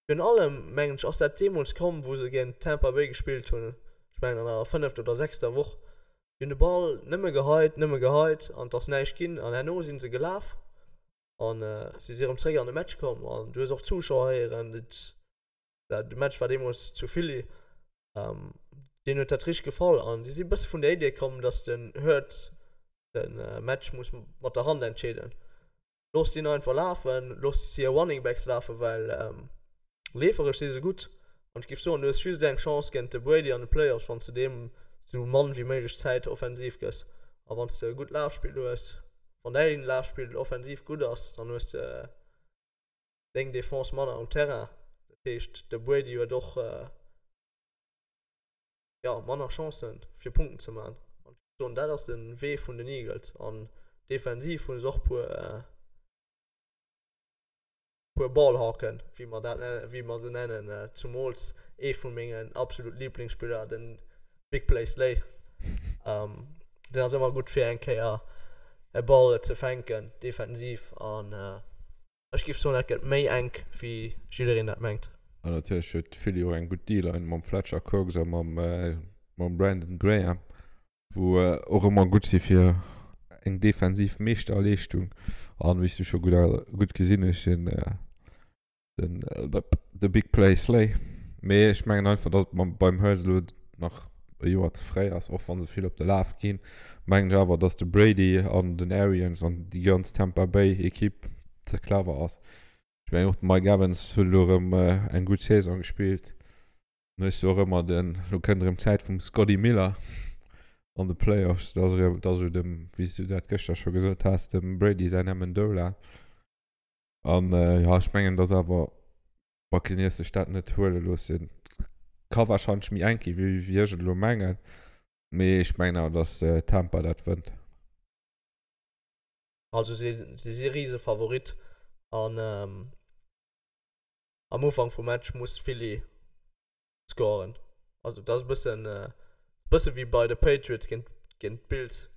B: virun allem, mengen ech, ass dat deemools komm, wou se géint Tampa Bay gespillt hunn, ech mengen an der fënnefter oder sechster Woch. Déi hunn de Ball nëmme geheit, nëmme geheit an et ass näischt ginn. An herno si se gelaf an si si erëm zeréck an de Match komm an du hues och d'Zuschauer héieren, et De Match war deemools zu Philly. Deenen huet dat richteg gefall an si si bësse vun der Idee komm, datt den Hurts de Match muss mat der Hand entscheeden. Loosst hien einfach lafen, loosst hir Running Backs lafen, well leeferesch si se gutt. An ech géif soen, du hues just eng Chance géint de Brady an de Playoffs, wann s de deem sou mann wéi méiglech Zäit offensiv gëss. A wann s de e gutt Lafspill hues, wann däin Lafspill offensiv gutt ass, dann hues de deng Defense manner um Terrain. Dat heescht, de Brady huet och jo, manner Chancen, fir Punkten ze maachen. An ech géif soen, dat ass de Wee vun den Eagles. An defensiv hu se och puer, puer Ballhawken, wéi mer dat nennen, wéi mer se nennen. Zumools ee vu mengen absolut Liblingsspiller, den Big Play Slay. Deen ass ëmmer gutt fir eng Kéier e Ball ze fänken defensiv. An Ech géif soen, dat gëtt méi enk, wéi jiddereen dat mengt.
A: An natierlech huet Philly och eng gutt D-Line mam Fletcher Cox a mam Brandon Graham, wou och ëmmer gutt si fir eng defensiv Meeschterleeschtung. An wéi s du scho gutt gesinn hues, den de Big Play Slay. Mee ech mengen einfach, datt et beim Hurts elo nach e Joer ze fréi ass, och wa se vill op de Laf ginn, mengen ech awer, datt de Brady an den Arians an déi ganz Tampa Bay Equipe ze clever ass. Ech mengen och de Mike Evans huet elo erëm eng gutt Saison gespillt. Dann hues du och ëmmer den, elo kënnt erëm d'Zäit vum Scotty Miller an de Playoffs, dat ass erëm, dat ass esou dem, wéi s du dat gëschter scho gesot has, dem Brady säin Amendola. An jo, ech mengen, datt awer Buccaneers sech dat net huele loossen. Ka wahrscheinlech méi enk gi wéi wéi ech et elo mengen, mee ech mengen awer, datt Tampa dat wënnt.
B: Also si si si Risefavorit an am Ufank vum Match muss Philly scoren. Also dat ass e bëssen bësse wéi bei de Patriots géint géint d'Bills.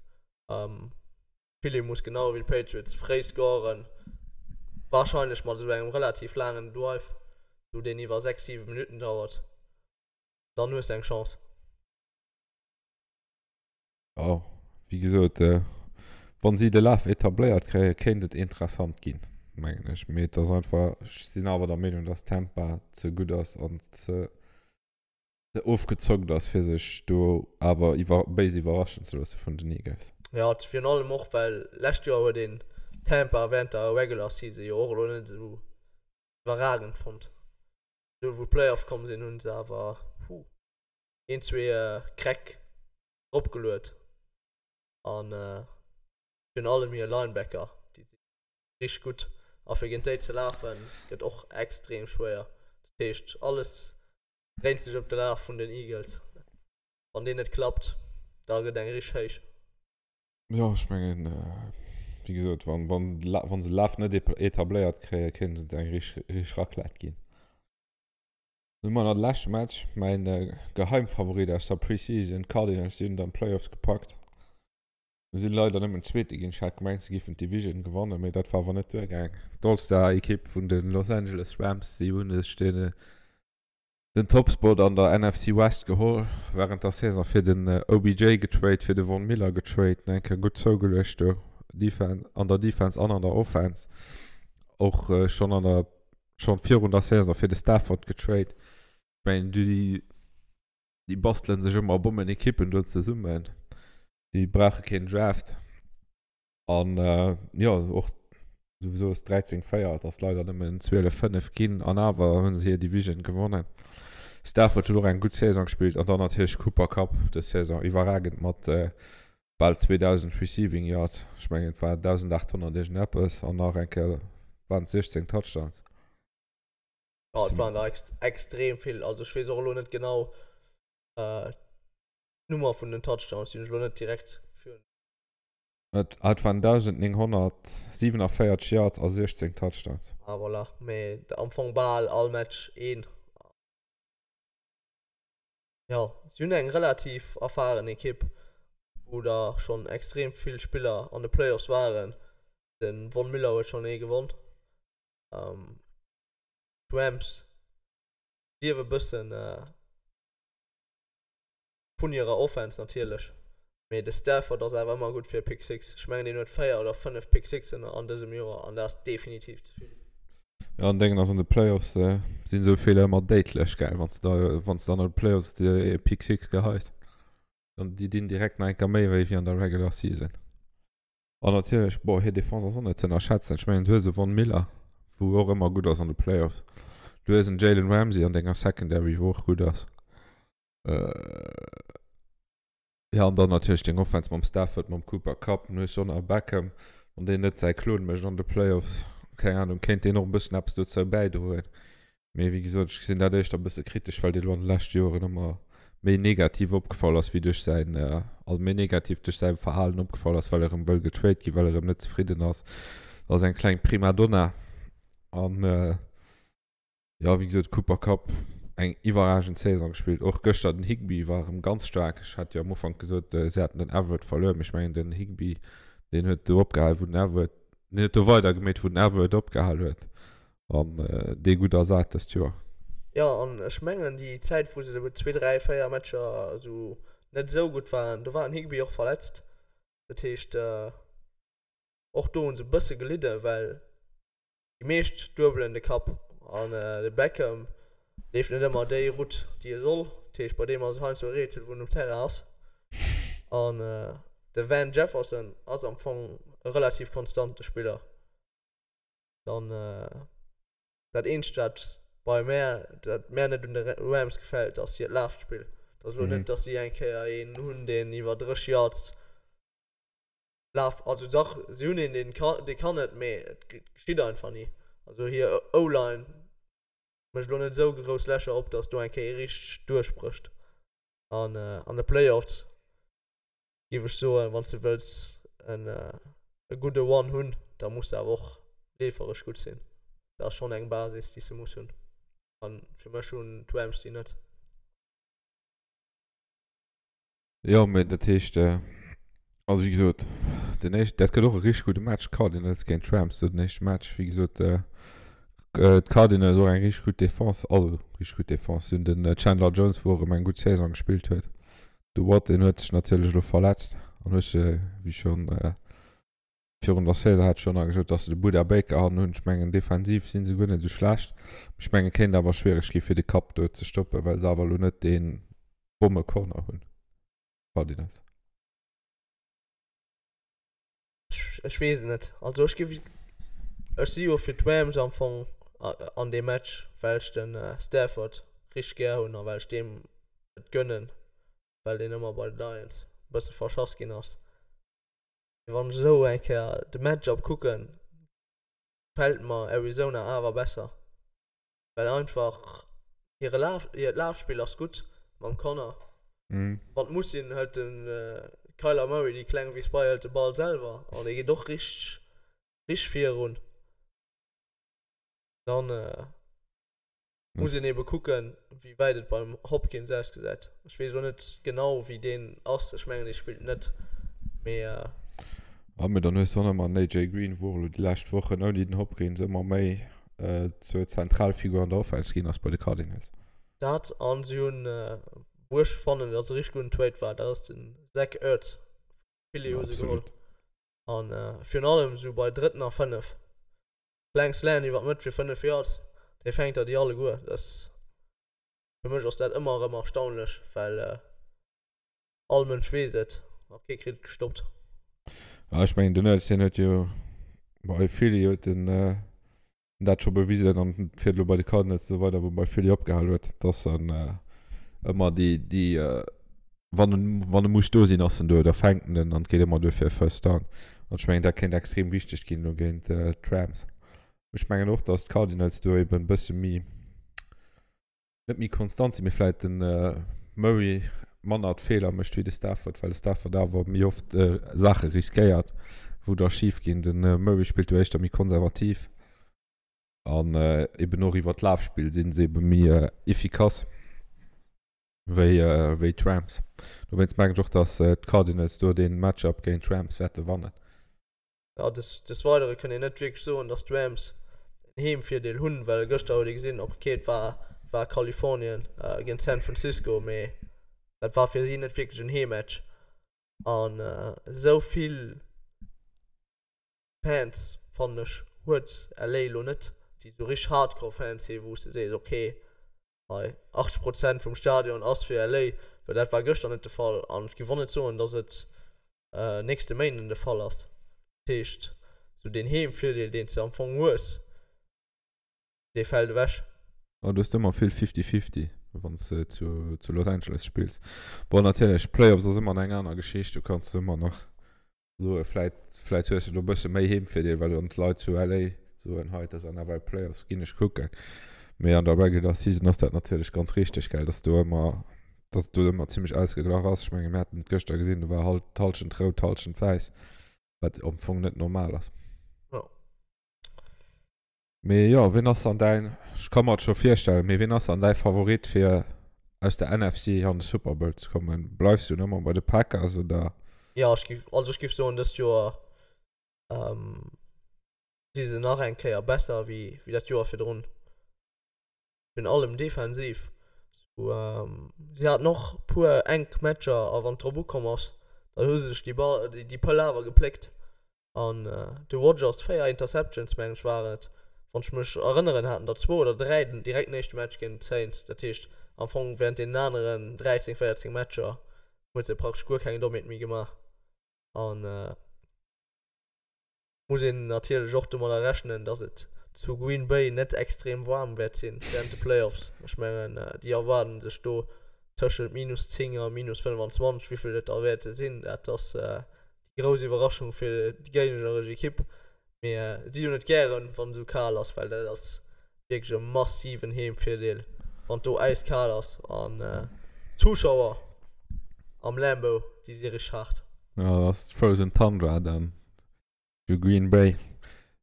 B: Philly muss genau wéi d'Patriots fréi scoren, warscheinlech mat esou engem relativ laangen Drive, sou deen iwwer 6, 7 Minutten dauert. Dann hues de eng Chance.
A: Jo, wéi gesot, wann si de Laf etabléiert kréien, kéint et interessant ginn, mengen ech. Mee et ass einfach, ech sinn awer der Meenung, dass Tampa ze gutt ass an ze ofgezockt ass fir sech do awer iwwer béis iwwerraschen ze loosse vun den Eagles.
B: Jo, virun allem och well lescht Joer huet een Tampa während der Regular Season jo och elo net esou iwwerragend fonnt. Elo wou d'Playoffs komm sinn hunn se awer, huh, een zwee Kräck dropgeluet. An virun allem hir Linebacker, déi si richteg gutt. A fir géint déi ze lafen, gëtt och extrem schwéier. Dat heescht, alles dréint sech ëm de Laf vun den Eagles. Wann deen net klappt, da gëtt eng richteg héich.
A: Jo, ech mengen, wéi gesot, wann, wann, wann se Laf net etabléiert kréien, kéint et eng richteg, richteg Raclette ginn. Dann hu mer nach de leschte Match, mäin Geheimfavorit aus der Preseason, d'Cardinals, déi hunn et an d'Playoffs gepackt. Sinn leider nëmmen Zweete ginn. Ech hat gemengt, se géifen d'Division gewannen, mee dat war awer net duergaang. D'All-Star-Ekipp vun de Los Angeles Rams, déi hunn sech den, den Topspot an der NFC West geholl wärend der Saison, fir den OBJ getrade, fir de Von Miller getrade, eng Kéier gutt zougeluecht do an der Defense an an der Offense. Och schonn an der Schon virun der Saison fir de Stafford getrade. Ech mengen déi déi bastelen sech ëmmer Bommenekippen do zesummen. Déi brauche keen Draft. An jo och souwisou ass 13 4, et ass leider nëmmen 12 5 ginn an awer hu se hir Division gewonnen. Stafford huet och eng gutt Saison gespillt an dann natierlech Cooper Kupp dës Saison iwwerragend mat bal 2000 Receiving Yards, ech mengen et war 1800 iergendeppes an nach eng Kéier waren et 16 Touchdowns.
B: Jo, et waren der extrem vill, also ech weess och elo net genau d'Nummer vun den Touchdowns, déi hunn ech elo net direkt virun.
A: Et waren 1947 Yards a 16 Touchdowns.
B: Ah voilà, mee am Fong bal all Match een. Jo, si hunn eng relativ erfaren Ekipp, wou der schonn extrem vill Spiller an de Playoffs waren. De Von Miller huet schonn ee gewonn. D'Rams liewe bëssen vun hirer Offense natierlech, mee de Stafford ass awer ëmmer gutt fir e Pick Six. Ech mengen, deen huet 4 oder 5 Pick Sixen an dësem Joer an dat ass definitiv ze vill.
A: Jo, an Déngen ass an de Playoffs sinn esou Feeler ëmmer déidlech, gell, wann s de da, wann s de an de Playoffs e Pick Six geheis, dann déi dinn direkt nach eng Kéier méi wéi wéi an der Regular Season. An natierlech, bon, hir Defense ass och net ze ënnerschätzen. Ech mengen, du hues e Von Miller, wou och ëmmer gutt ass an de Playoffs. Du hues en Jalen Ramsey an denger Secondary, wou och gutt ass. Jo, an dann natierlech deng Offense mam Stafford, mam Cooper Kupp, dann hues du och nach e Beckham, wann deen net säi Klon mécht an de Playoffs, keng Ahnung, kéint deen och e bëssen eppes dozou bäidroen. Mee wéi gesot, ech gesinn dat éischter e bësse kritesch, well dee lo an de leschte Joren ëmmer méi negativ opgefall ass, wéi duerch säin, also méi negativ duerch säi Verhalen opgefall ass, well e rëm wëll getrade ginn, well e rëm net zefridden ass. Dat ass eng kleng Primadonna an. Jo, wéi gesot, Cooper Kupp eng iwwerragend Saison gespillt. Och gëschter den Higbee war erëm ganz staark. Ech hat jo am Ufank gesot, si hätten den Everett verluer, mee ech mengen den Higbee, deen huet do opgehal wou den Everett, deen huet do weider gemeet wou den Everett opgehal huet an dee gutt ersat dëst Joer.
B: Jo, an ech mengen déi Zäit wou se zwee, dräi, véier Matcher esou net esou gutt waren, do war den Higbee och verletzt. Dat heescht och do hu se e bësse gelidden, well Déi meescht duebelen de Kapp an de Beckham leeft net ëmmer déi Route, déi e soll. Dat heescht, bei deem ass et heiansdo e Rätsel, wou en um Terrain ass. An de Van Jefferson ass am Fong e relativ konstante Spiller. Dann dat eenzegt, wat bei mär, dat mär net un de Rams gefält, ass hiert Lafspill. Et ass elo net, datt si eng Kéier een hunn, deen iwwer 30 Yards Laf, also dach, si hunn een, deen ka, dee kann et, mee et geschitt einfach ni. Also hir O-Line mécht elo net esou grouss Lächer op, datt do eng Kéier ee richteg duerchbrécht. An an de Playoffs géif ech soen, wann s de wëlls en e gudde One hunn, da muss de awer och leeferesch gutt sinn. Dat ass schonn eng Basis, déi s de muss hunn. An fir mech hunn d'Rams déi net.
A: Jo, mee dat heescht, also wéi gesot, den éischt, dat gëtt och e richteg gudde Match, Cardinals géint Rams, do den éischte Match. Wéi gesot, d'Cardinals och eng richteg gutt Defense, also richteg gutt Defense. Si hunn den Chandler Jones, wou och erëm eng gutt Saison gespillt huet. De Watt, deen huet sech natierlech elo verletzt an huet se, wéi schonn virun der Saison hat ech schonn nach gesot, datt se de Budda Baker hannen hunn. Ech mengen, defensiv si se guer net esou schlecht. Ech mengen, kéint awer schwiereg gi fir de Kapp do ze stoppen, well se awer elo net dee Bommecorner hunn, Cardinals.
B: Ech weess et net. Also ech géif, ech si jo fir d'Rams am Fong an deem Match, well ech de Stafford richteg gär hunn a well ech deem et gönnen, well deen ëmmer bei de Lions e bësse verschass ginn ass. Mee wann ech esou eng Kéier de Matchup kucken, gefält mer Arizona awer besser, well einfach hire Laf, hiert Lafspill ass gutt mam Conner. Wann et muss sinn, hëlt de Kyler Murray, déi kleng wéi Spy, hëlt de Ball selwer an dee geet och richteg, richteg virun. Dann Muss een ebe kucken, wéi wäit et beim Hopkins ausgesäit. Ech weess elo net genau, wéi deen ass. Ech mengen, dee spillt net, mee.
A: Ah, mee dann hues de och nach emmer den AJ Green, wou och elo déi lescht Wochen ouni den Hopkins ëmmer méi zur Zentralfigur an der Offense ginn ass bei de Cardinals.
B: Dat, an si hunn, wou ech fannen, datt e richteg gudden Trade war, dat ass den Zach Ertz vu Philly hu se geholl. An virun allem esou bei drëtten a 5. Kleng Slant iwwer d'Mëtt fir 5 Yards, dee fänkt der déi alleguer. Dat, fir mech ass dat ëmmer erëm erstaunlech, well all Mënsch weess et a kee kritt et gestoppt.
A: Ah, ech mengen den Ertz, deen huet jo bei Philly huet en dat scho bewisen an fiert elo bei de Cardinals esou weider, wou e bei Philly opgehal huet, dass en ëmmer déi, déi Wann en, wann e muss do sinn, ass en do, da fänkt en en an et geet ëmmer duer fir e First Down. An ech mengen, dat kéint extrem wichteg ginn elo géint d'Rams. Ech mengen och, datt d'Cardinals do eben e bësse méi, net méi konstant sinn, mee vläicht de Murray manner d'Feeler mécht wéi de Stafford, well de Stafford awer méi oft Saache riskéiert, wou da schif ginn. De Murray spillt do éischter méi konservativ an eben och iwwer d'Lafspill si se ebe méi efficace. Wéi wéi d'Rams. Dowéinst mengen ech och, dass d'Cardinals do dee Matchup géint d'Rams wäerte wannen.
B: Jo, des des Weidere kënnt een net wierklech soen, dass d'Rams en Heemvirdeel hunn, well gëschter huet ee gesinn, ok, et war war Kalifornien géint San Francisco, mee dat war fir si net wierklech en Heemmatch. An esou vill Fans, fannen ech, huet LA elo net, déi esou richteg Hardcore Fans sinn, wou s de sees, ok, Hei 80 Prozent vum Stadion ass fir LA, well dat war gëschter net de Fall an ech géif och net soen, datt et nächste Méinden de Fall ass. Dat heescht, esou deen Heemvirdeel, deen s de am Fong hues, dee fält ewech.
A: Jo, du hues ëmmer vill Fifty-Fifty, wann s de zu Los Angeles spills. Bon, natierlech, Playoffs ass ëmmer eng aner Geschicht, do kanns de ëmmer nach soe vläit vläit hues de do e bësse méi Heemvirdeel, well dann d'Leit zu LA soen, hei et ass NFL Playoffs, ginn ech kucken. Mee an der Regular Season ass dat natierlech ganz richteg, gell, dass do ëmmer, dass et do ëmmer zimmlech ausgeglach ass. Ech menge mir haten et gëschter gesinn, do war halt d'Hallschent rout, d'Hallschent wäiss, wat am Fong net normal ass.
B: Jo.
A: Mee jo, wien ass dann däin, ech ka mer et scho virstellen, mee wien ass dann däi Favorit fir aus der NFC an de Super Bowl ze kommen? Bleifs du ëmmer bei de Packers oder?
B: Jo, ech géif, also ech géif soen dëst Joer si se nach eng Kéier besser wéi wéi dat Joer virdrun. Virun allem defensiv. Sou, si haten och puer enk Matcher a wann et drop ukomm ass, dann hu se sech déi Ball, déi Pëll awer gepléckt. An de Rodgers, 4 Interceptions mengen ech waren et, wann ech mech erënneren, haten der zwou oder 3 den direkten éischte Match géint d'Saints. Dat heescht am Fong während deenen aneren 13, 14 Matcher huet e praktesch guer keng Dommheet méi gemaach. An muss een natierlech och domadder rechnen, dass et zu Green Bay net extrem waarm wäert sinn während de Playoffs. Ech mengen déi erwaarden sech do tëschent minus 10 a minus 25, wéivill et da wäerte sinn, dat ass déi grouss Iwwerraschung fir déi géigneresch Ekipp. Mee si hunn et gären, wann et esou kal ass, well dat ass wierklech e massiven Heemvirdeel, wann et do äiskal ass. An d'Zuschauer am Lambeau, déi si richteg haart.
A: Jo, dat ass d'Frozen Tundra dann zu Green Bay.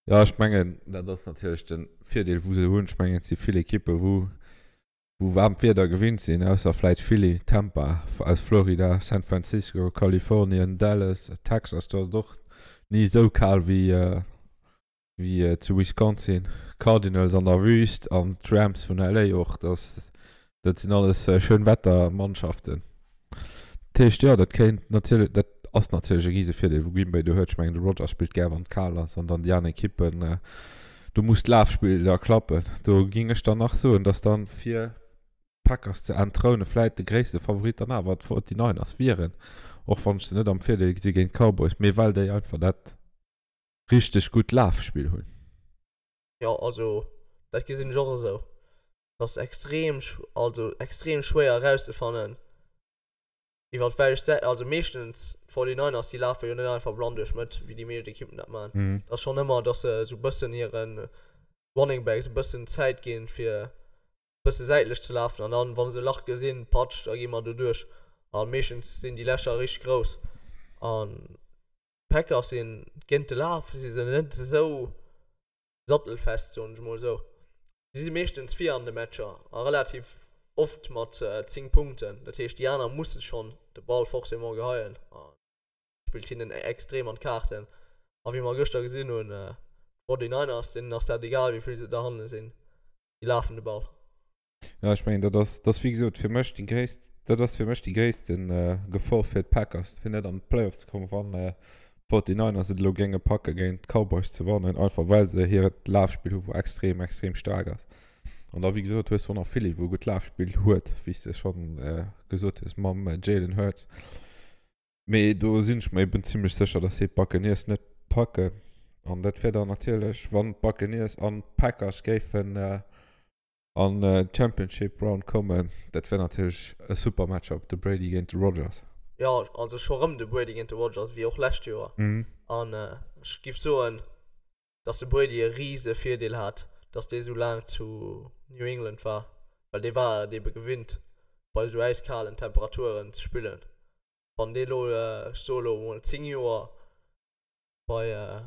A: Jo, ech mengen, dat ass natierlech de Virdeel, wou se hunn. Ech mengen, et si vill Ekippe wou wou waarmt Wieder gewinnt sinn, ausser vläit Philly, Tampa aus Florida, San Francisco, Kalifornien, Dallas, Texas, do ass et och ni esou kal wéi wéi zu Wisconsin, Cardinals an der Wüst an d'Rams vun LA och, dat dat sinn alles Schönwettermannschaften. Dat heescht, jo, dat kéint natierlech, dat ass natierlech e rise Virdeel wou Green Bay do huet. Ech mengen de Rodgers spillt gär wann et kal ass an dann déi aner Ekippen, do muss d'Lafspill da klappen. Do géing ech dann nach soen, datt dann fir d'Packers ze entthroune vläit de gréisste Favorit dann awer d'Forty-Niners wieren, och wann ech se net am Virdeel gesi géint d'Cowboys, mee well déi einfach dat richteg gutt Lafspill hunn.
B: Jo, also dat gesinn ech och esou. Et ass extrem, also extrem schwéier erauszefannen, iwwer welch Säit, also meeschtens. D'Forty-Niners, déi lafe jo net einfach blann duerch d'Mëtt, wéi déi meescht Ekippen dat maachen. Mm. Dat ass schonn ëmmer, dass se esou bëssen hire Running Backs e bëssen Zäit ginn, fir bësse säitlech ze lafen. An dann, wa se e Lach gesinn, patsch, da gi mer do duerch. A meeschtens sinn déi Lächer richteg grouss. An d'Packers sinn géint de Laf si se net esou sattelfest, soen ech mol esou. Si si meeschtens vir an de Matcher a relativ oft mat 10 Punkten. Dat heescht, déi aner musse schonn de Ball forcément geheien a spillt hinnen extrem an d'Kaarten. A wéi mer gëschter gesinn hunn, d'Forty-Niners, deenen ass dat egal, wéi vill se derhanne sinn, déi lafen de Ball.
A: Ja, ech mengen, dat ass, dat ass wéi gesot fir mech déi gréisst, dat ass fir mech déi gréisste Gefor fir d'Packers, fir net an d'Playoffs ze kommen, wann d'Forty-Niners et elo géinge packe géint d'Cowboys ze wannen, einfach well se hiert Lafspill hu wou extrem, extrem staark ass. An da wéi gesot hues du och nach Philly, wou e gutt Lafspill huet, wéi s de schonn gesot hues, mam Jalen Hurts. Mee do sinn ech mer eben zimlech sécher, dass si d'Buccaneers net packen. An dat wär dann natierlech, wann d'Buccaneers an d'Packers géifen An d'Championship Round kommen. Dat wär natierlech e super Matchup, de Brady géint de Rodgers.
B: Jo, also scho rëm de Brady géint de Rodgers, wéi och lescht Joer. An ech giff soen, dass de Brady e rise Virdeel hat, dass dee sou laang zu New England war, well dee war et ebe gewinnt, bei sou äiskalen Temperaturen ze spillen. Wann dee lo, ech soe lo emol 10 Joer bei,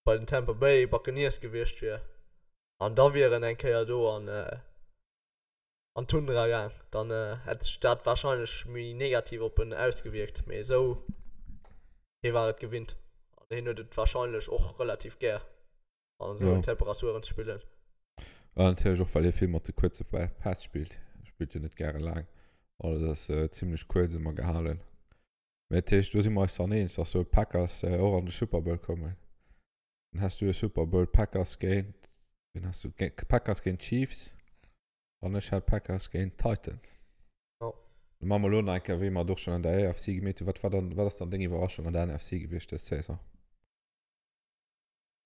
B: bei den Tampa Bay Buccaneers gewiescht wier, An da wier en eng Kéier do an an d'Tundra gaang, dann hätt sech dat warscheinlech méi negativ op en ausgewierkt. Mee esou, hie war et gewinnt an hien huet et warscheinlech och relativ gär an esou Temperaturen ze spillen.
A: An natierlech och well hie vill mat de kuerze Päss spillt. Hie spillt jo net gäre laang, alles ass zimmlech kuerz ëmmer gehalen. Mee dat heescht, do si mer eis dann eens, dass do d'Packers och an de Super Bowl kommen. Dann has du e Super Bowl Packers géint, wen has du? Packers géint Chiefs an ech hat Packers géint Titans.
B: Ja.
A: Dann maache mer elo nach eng Kéier, wéi mer et och schonn an der AFC gemeet hunn. Wat war dann, wat ass dann deng Iwwerraschung an der NFC gewiescht dës Saison?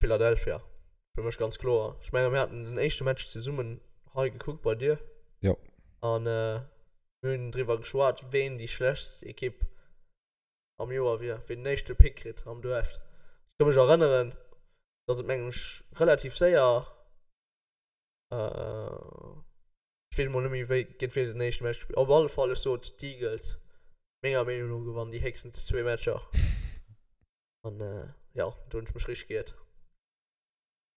B: Philadelphia, fir mech ganz kloer. Ech menge mir haten den éischte Match zesummen hei gekuckt bei dir.
A: Jo.
B: An mir hunn driwwer geschwat, ween déi schlechtst Ekipp am Joer wier, wien den éischte Pick kritt am Draft. Ech ka mech erënneren, dass et mengen ech relativ séier, ech weess emol net méi wéi géint wee se den éischte Match gespillt, op alle Fall ech sot d'Eagles menger Meenung no gewannen déi héchstens zwee Matcher an jo do hunn ech mech richteg geiert.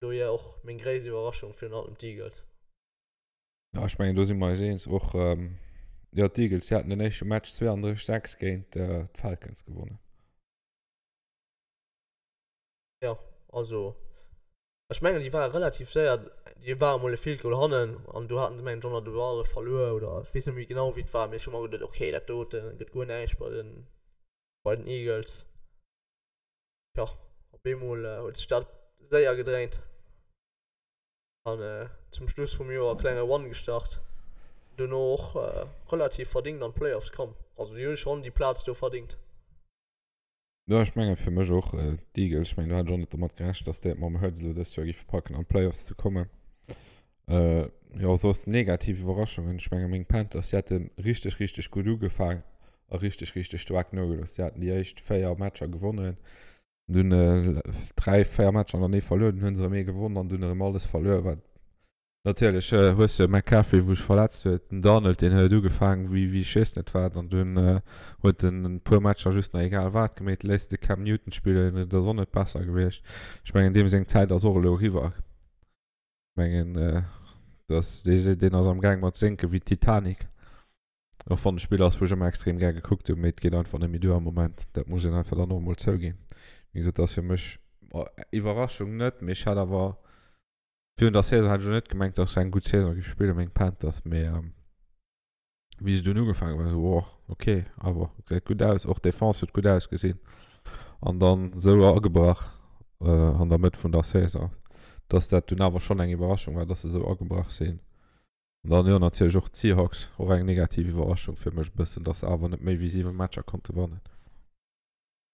B: Dohier och meng gréisst Iwwerraschung virun allem d'Eagles.
A: Ja, ech mengen do si mer eis eens. Och jo, d'Eagles, déi haten den éischte Match 32, 6 géint d'Falcons gewonnen.
B: Jo, also ech mengen déi ware relativ séier, déi ware mol e Field Goal hannen an do haten se mengen ech och nach de Ball verluer oder ech weess net méi genau wéi et war, mee ech hu mer geduet, okay dat dote gëtt guer näischt bei den bei den Eagles. Jo, op eemol huet sech dat séier gedréint. An zum Schluss vum Joer klenge Run gestart. Dono och relativ verdingt an d'Playoffs komm. Also déi hu schonn déi Plaz do verdingt.
A: Jo, ech mengen fir mech och d'Eagles. Ech mengen do hat ech och net domat gerechent, dass déi et mam Hurts elo dëst Joer géife packen an d'Playoffs ze kommen. Jo, soss negativ Iwwerraschungen, ech menge meng Panthers, déi hate richteg, richteg gutt ugefaang a richteg, richteg staark nogelooss. Déi haten déi éischt 4 Matcher gewonnen. Dunn 3, 4 Matcher an der Nee verluer, dunn hunn se erëm ee gewonnen an dunn erëm alles verluer. Wat natierlech hues de McCaffrey wou sech verletzt huet, den Darnold deen huet ugefaangen wéi wéi ech weess net wat an dunn huet en e puer Matcher just nach egal wat gemeet, léisst de Cam Newton spillen, et ass och net besser gewiescht. Ech mengen deem seng Zäit ass och elo eriwwer. Ech mengen dass dee deen ass am gaang mat sénke wéi d'Titanic. Och wann e Spiller ass, wou ech ëmmer extrem gär gekuckt hunn, mee et geet einfach net méi duer am Moment. Dat muss een einfach dann och emol zouginn. Wéi gesot, dat ass fir mech, Iwwerraschung net, mee ech hat awer virun der Saison hat ech elo net gemengt, datt se eng gutt Saison géif spillen, meng Panthers, mee wéi se dunn ugefaangen hunn, war esou, oh ok, awer gesäit gutt aus. Och d'Defense huet gutt ausgesinn an dann esou agebrach an der Mëtt vun der Saison, datt dat dunn awer schonn eng Iwwerraschung war, datt se esou agebrach sinn. An dann, jo, natierlech och d'Seahawks, och eng negativ Iwwerraschung fir mech e bëssen, dass se awer net méi wéi 7 Matcher konnte wannen.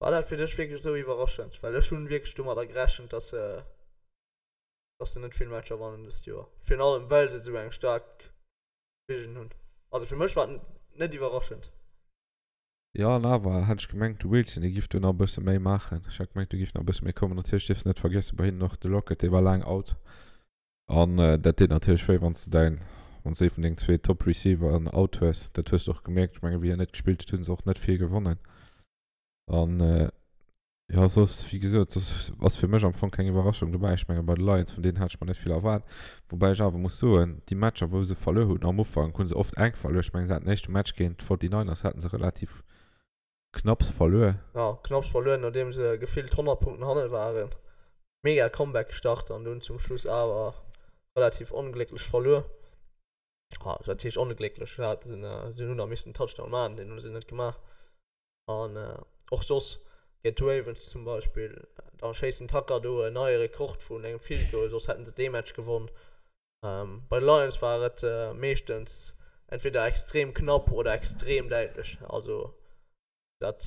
B: War dat fir dech wierklech esou iwwerraschend? Well ech hunn wierklech domadder gerechent, dass se, dass se net vill Matcher wannen dëst Joer. Virun allem well se esou eng staark Division hunn. Also fir mech war et net iwwerraschend.
A: Jo, an awer hätt ech gemengt, de Wilson, dee giff do nach e bësse méi maachen. Ech hat gemengt, do giff nach e bësse méi kommen. Natierlech dierfs de net vergiessen, bei hinnen och de Lockett, dee war laang out. An dat deet natierlech wéi, wann s de däin, wann s de ee vun dengen zwee Top Receiveren out hues. Dat hues de och gemierkt. Ech mengen, wéi hien net gespillt huet, hu se och net vill gewonnen. An jo, soss, wéi gesot, soss ass fir mech am Fong keng Iwwerraschung dobäi. Ech menge bei de Lions, vun deenen hat ech mer net vill erwaart. Woubäi ech awer muss soen, déi Matcher, wou se verluer hunn am Ufank, hu se oft enk verluer. Ech mengen, se haten den éischte Match géint d'Forty-Niners hate se relativ knapps verluer.
B: Jo, knapps verluer, nodeem se gefillt 100 Punkten hanne waren. Mega Comeback gestart an dunn zum Schluss awer relativ onglécklech verluer. Ah, wat heescht onglécklech? Se haten, se hunn nach missen en Touchdown maachen, deen hu se net gemaach. An och soss géint d'Ravens zum Beispill, da schéisst den Tucker do en neie Rekord vun engem Field Goal, soss hätten se dee Match gewonn. Bei de Lions war et meeschtens entweder extrem knapp oder extrem däitlech. Also dat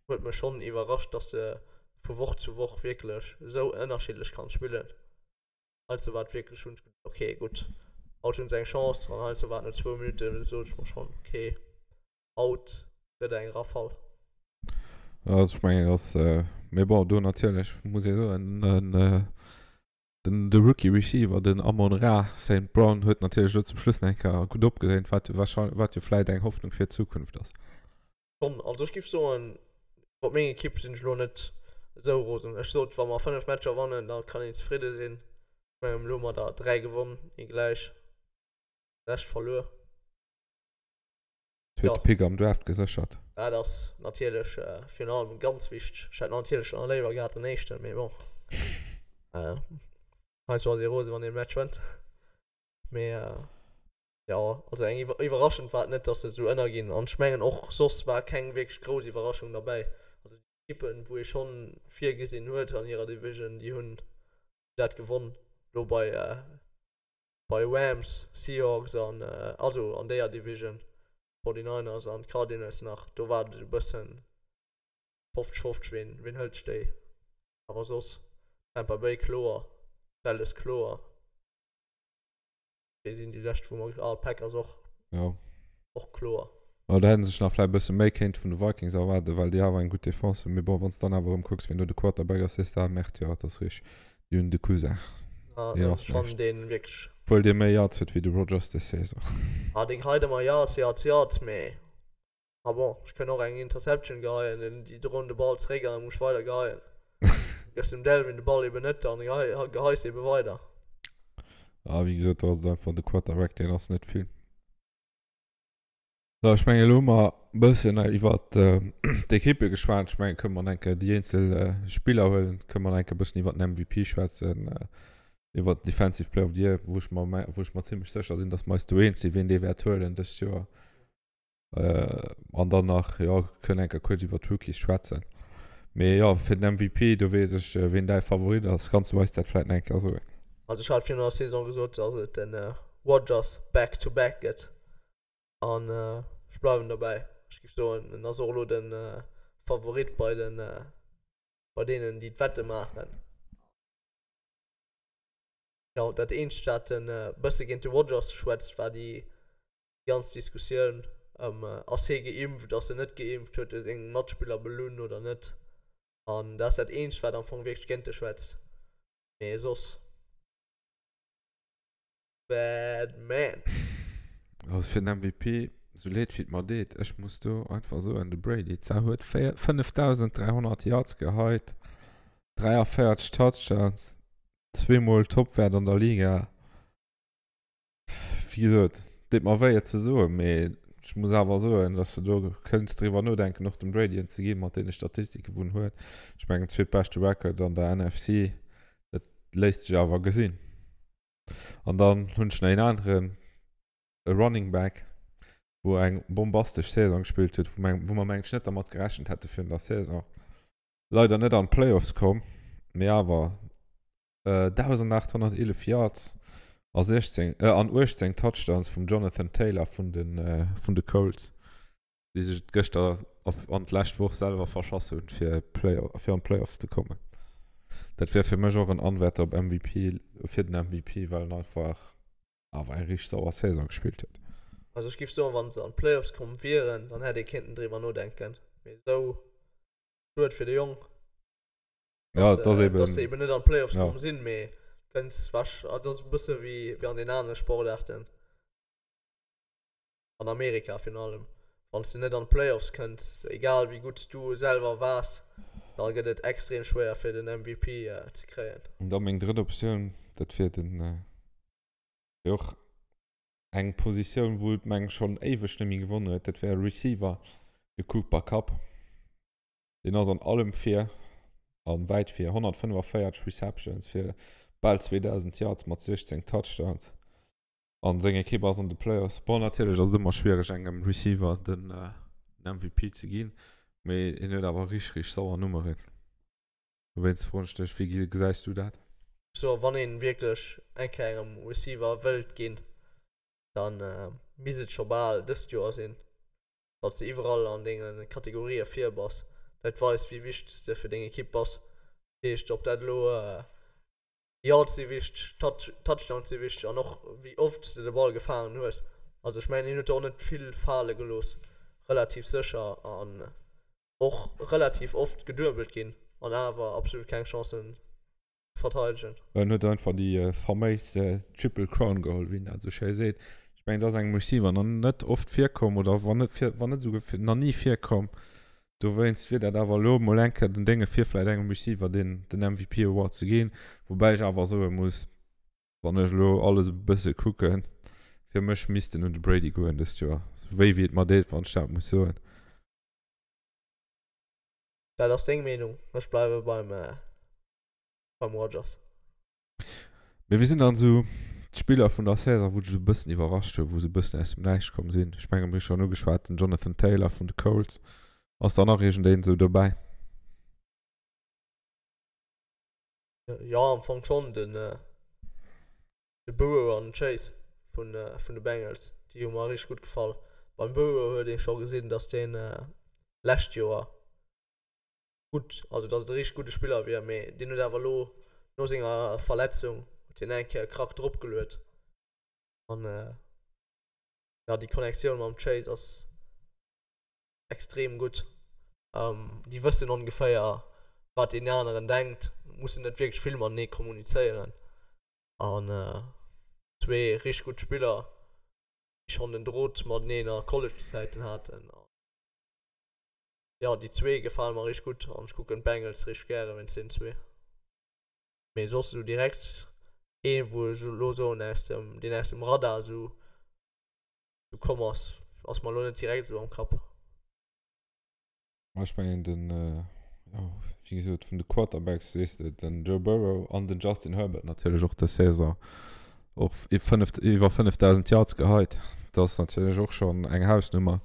B: huet mech schonn iwwerrascht, dass se vu Woch zu Woch wierklech esou ënnerschiddlech kann spillen. Heiansdo war et wierklech, hunn ech geduecht, okay gutt, haut hunn se eng Chance an heiansdo war et no zwou Minutte sot ech mer schonn, okay, haut gëtt eng Rafale.
A: Also ech mengen dass, mee bon do natierlech muss ee soen, den de Rookie Receiver den Amon-Ra Saint Brown huet natierlech elo zum Schluss nach eng Kéier gutt opgedréint, wat warscheinlech wat jo vläit eng Hoffnung fir d'Zukunft ass.
B: Schonn, also ech giff soen, iwwer meng Ekipp sinn ech elo net esou rosen. Ech sot, wa mer 5 Matcher wannen, da kann een zefridde sinn. Ech mengen, elo hu mer der 3 gewonn, ee gläich, de Rescht verluer.
A: Zweete Pick am Draft geséchert.
B: Dat ass natierlech virun allem ganz wichteg. Ech hätt natierlech nach léiwer gehat den éischten, mee bon. Heiansdo ass ee rose wann een e Match wënnt. Mee Jo, also eng iwwerraschend war et net, dass se esou ënnerginn. An ech mengen och soss war keng wierklech grouss Iwwerraschung derbäi. Also déi Ekippen, wou ee schonn virgesinn huet an hirer Division, déi hunn dat gewonn. Elo bei bei Rams, Seahawks an also an déier Division, 49ers an d'Cardinals nach, do war et esou e bëssen 50, 50 ween ween hëlt sech déi. Awer soss Tampa Bay kloer, Dallas kloer. Déi sinn déi lescht, wou mer, ah, d'Packers och.
A: Jo.
B: Och kloer.
A: Jo, do hätt sech nach vläicht e bësse méi kéinte vun de Vikings erwaarden, well déi awer eng gutt Defense hunn. Mee bon, wann s de dann awer erëm kucks, wien do de Quarterback ass, sees de, ah, Merde, jo, et ass richteg, déi hunn de Cousin.
B: Ja, dat ass schonn dee wierklech.
A: Obwuel dee méi Yards huet wéi de Rodgers des Saison.
B: Ah, dee geheit ëmmer Yards, Yards, Yards, mee. Ah bon, ech kënn och eng Interception geheien, den déi droen de Ball zeréck an da muss ech weider geheien. Gëss dem Delvin de Ball eben net an geheis eben weider.
A: Ah, wéi gesot, do ass et einfach de Quarterback, deen ass net vill. So, ech mengen, elo hu mer e bëssen iwwer d'Ekippe geschwat. Ech mengen, kënne mer eng Kéier déi eenzel Spiller huelen, kënne mer eng Kéier e bëssen iwwer den MVP schwätzen, iwwer den Defensive Player of the Year, wou ech mer, wou ech mer zimlech sécher sinn, datt mer eis do eens sinn, wien dee wäert huelen dëst Joer. An dann nach, jo, kënnen eng Kéier kuerz iwwer d'Rookies schwätzen. Mee jo, fir den MVP, do weess ech, wien däi Favorit ass. Kanns du eis dat vläicht nach eng Kéier soen?
B: Also ech hat virun der Saison gesot, dass et de Rodgers back to back gëtt. An ech bleiwen dobäi. Ech géif soen, en ass och elo de Favorit bei den, bei deenen, déi d'Wette maachen. Jo, dat eenzegt, wat e bësse géint de Rodgers schwätzt, war déi ganz Diskussioun ëm ass hie geimpft, ass en net geimpft, huet e seng Matspiller belunn oder net. An dat ass dat eenzegt, wat am Fong wierklech géint e schwätzt. Mee soss, bad man.
A: Also fir den MVP, sou leed wéi et mer deet, ech muss do einfach soen, de Brady zwar huet 5.300 Yards geheit, 43 Touchdowns, zweemol Topwäert an der Liga. Wéi gesot, deet mer wéi et ze soen, mee ech muss awer soen, dass de do kënns driwwer nodenken, och dem Brady en ze ginn, mat deene Statistike wou en huet. Ech mengen, zweetbeschte Record an der NFC, dat léisst sech awer gesinn. An dann hunn ech nach een aneren, e Running Back, wou eng bombastesch Saison gespillt huet, wou meng, wou mer mengen ech net dermat gerechent hätte virun der Saison. Leider net an d'Playoffs komm, mee awer 1.811 Yards a 16, äh, an 18 Touchdowns vum Jonathan Taylor vun den, äh, vun de Colts, déi sech et gëschter an d'lescht Woch selwer verschass hunn, fir Play fir an d'Playoffs ze kommen. Dat wär fir mech och en Anwärter op MVP, fir den MVP, well en einfach awer eng richteg sauer Saison gespillt huet.
B: Also ech giff soen, wann se an d'Playoffs komm wieren, dann hätt ee kéinten driwwer nodenken. Mee esou, schued fir de Jong,
A: Ja, dass,
B: äh, dass se eben net an d'Playoffs ja. komm sinn, mee kënns wasch, also ass e bësse wéi, wéi an den anere Sportaarten. An Amerika virun allem. Wann s du net an d'Playoffs kënns, egal wéi gutt s du selwer waars, da gëtt et extrem schwéier fir den MVP ze kréien.
A: An da meng drëtt Optioun, dat wier den, wier och eng Positioun wou et meng schonn éiweg net méi gewonnen huet, dat wär Receiver, de Cooper Kupp. Deen ass an allem vir an wäit vir, 145 Receptions fir bal 2.000 Yards mat 16 Touchdowns an seng Ekipp ass an de Playoffs. Bon, natierlech ass et ëmmer schwiereg engem Receiver den MVP ze ginn, mee hien huet awer richteg, richteg sauer Nummeren. Dowéinst froen ech dech, wéi gesäis du dat?
B: So wann een wierklech eng Kéier engem Receiver wëllt ginn, dann misst et scho bal dëst Joer sinn. Wann s de iwwerall an denge Kategorië vir bass. Dat weist, wéi wichteg s de fir deng Ekipp bass. Dat heescht, ob dat elo Yards si wichteg, Touchdowns si wichteg an och wéi oft s de de Ball gefaangen hues. Also ech mengen, hien huet do och net vill fale gelooss, relativ sécher an och relativ oft geduebelt ginn an awer absolut keng Chancen verteidegen.
A: En huet einfach déi faméis Triple Crown geholl, wéi een dat esou schéi seet. Ech mengen, dat ass engem Receiver nach net oft virkomm oder wann net vir, wann net esouguer nach ni virkomm. Dowéinst wier dat awer elo emol eng Kéier den Dénge fir vläicht engem Receiver deen den MVP Award ze ginn. Woubäi ech awer soe muss, wann ech elo alles e bësse kucken, fir mech misst en un de Brady goen dëst Joer. Sou wéi wéi et mer deet, wann ech dat muss soen.
B: Dat ass deng Meenung, ech bleiwe beim. beim Rodgers.
A: Mee wie sinn dann esou d'Spiller vun der Saison, wou dech esou e bëssen iwwerrascht hunn, wou se e bëssen aus dem Näischt komm sinn? Ech menge mir hu schonn ugeschwat, den Jonathan Taylor vun de Colts. Ass da nach iergendeen esou dobäi?
B: Jo, am Fong schonn. Den de Burrow an den Chase vun vun de Bengals, déi hu mer richteg gutt gefall. Beim Burrow huet ee scho gesinn, datt deen lescht Joer gutt, also datt et e richteg gudde Spiller wier, mee deen huet awer elo no senger Verletzung huet hien eng Kéier e Krack drop geluet an jo déi Connectioun mam Chase ass extrem gutt. Déi wëssen ongeféier wat deen aneren denkt, mussen net wierklech vill matenee kommunizéieren an zwee richteg gutt Spiller, déi schonn den Drot mateneen a College-Zäiten haten. Jo déi zwee gefalen mer richteg gutt an ech kucken d'Bengals richteg gären wéinst deenen zwee. Mee soss esou direkt ee wou ech elo soen aus dem deen aus dem Radar esou esou komm ass, ass mer elo net direkt esou am Kapp.
A: Ma ech mengen den jo wéi gesot vun de Quarterbacks weess de den Joe Burrow an den Justin Herbert natierlech och dës Saison och 5 iwwer 5.000 Yards geheit. Dat ass natierlech och schonn eng Hausnummer.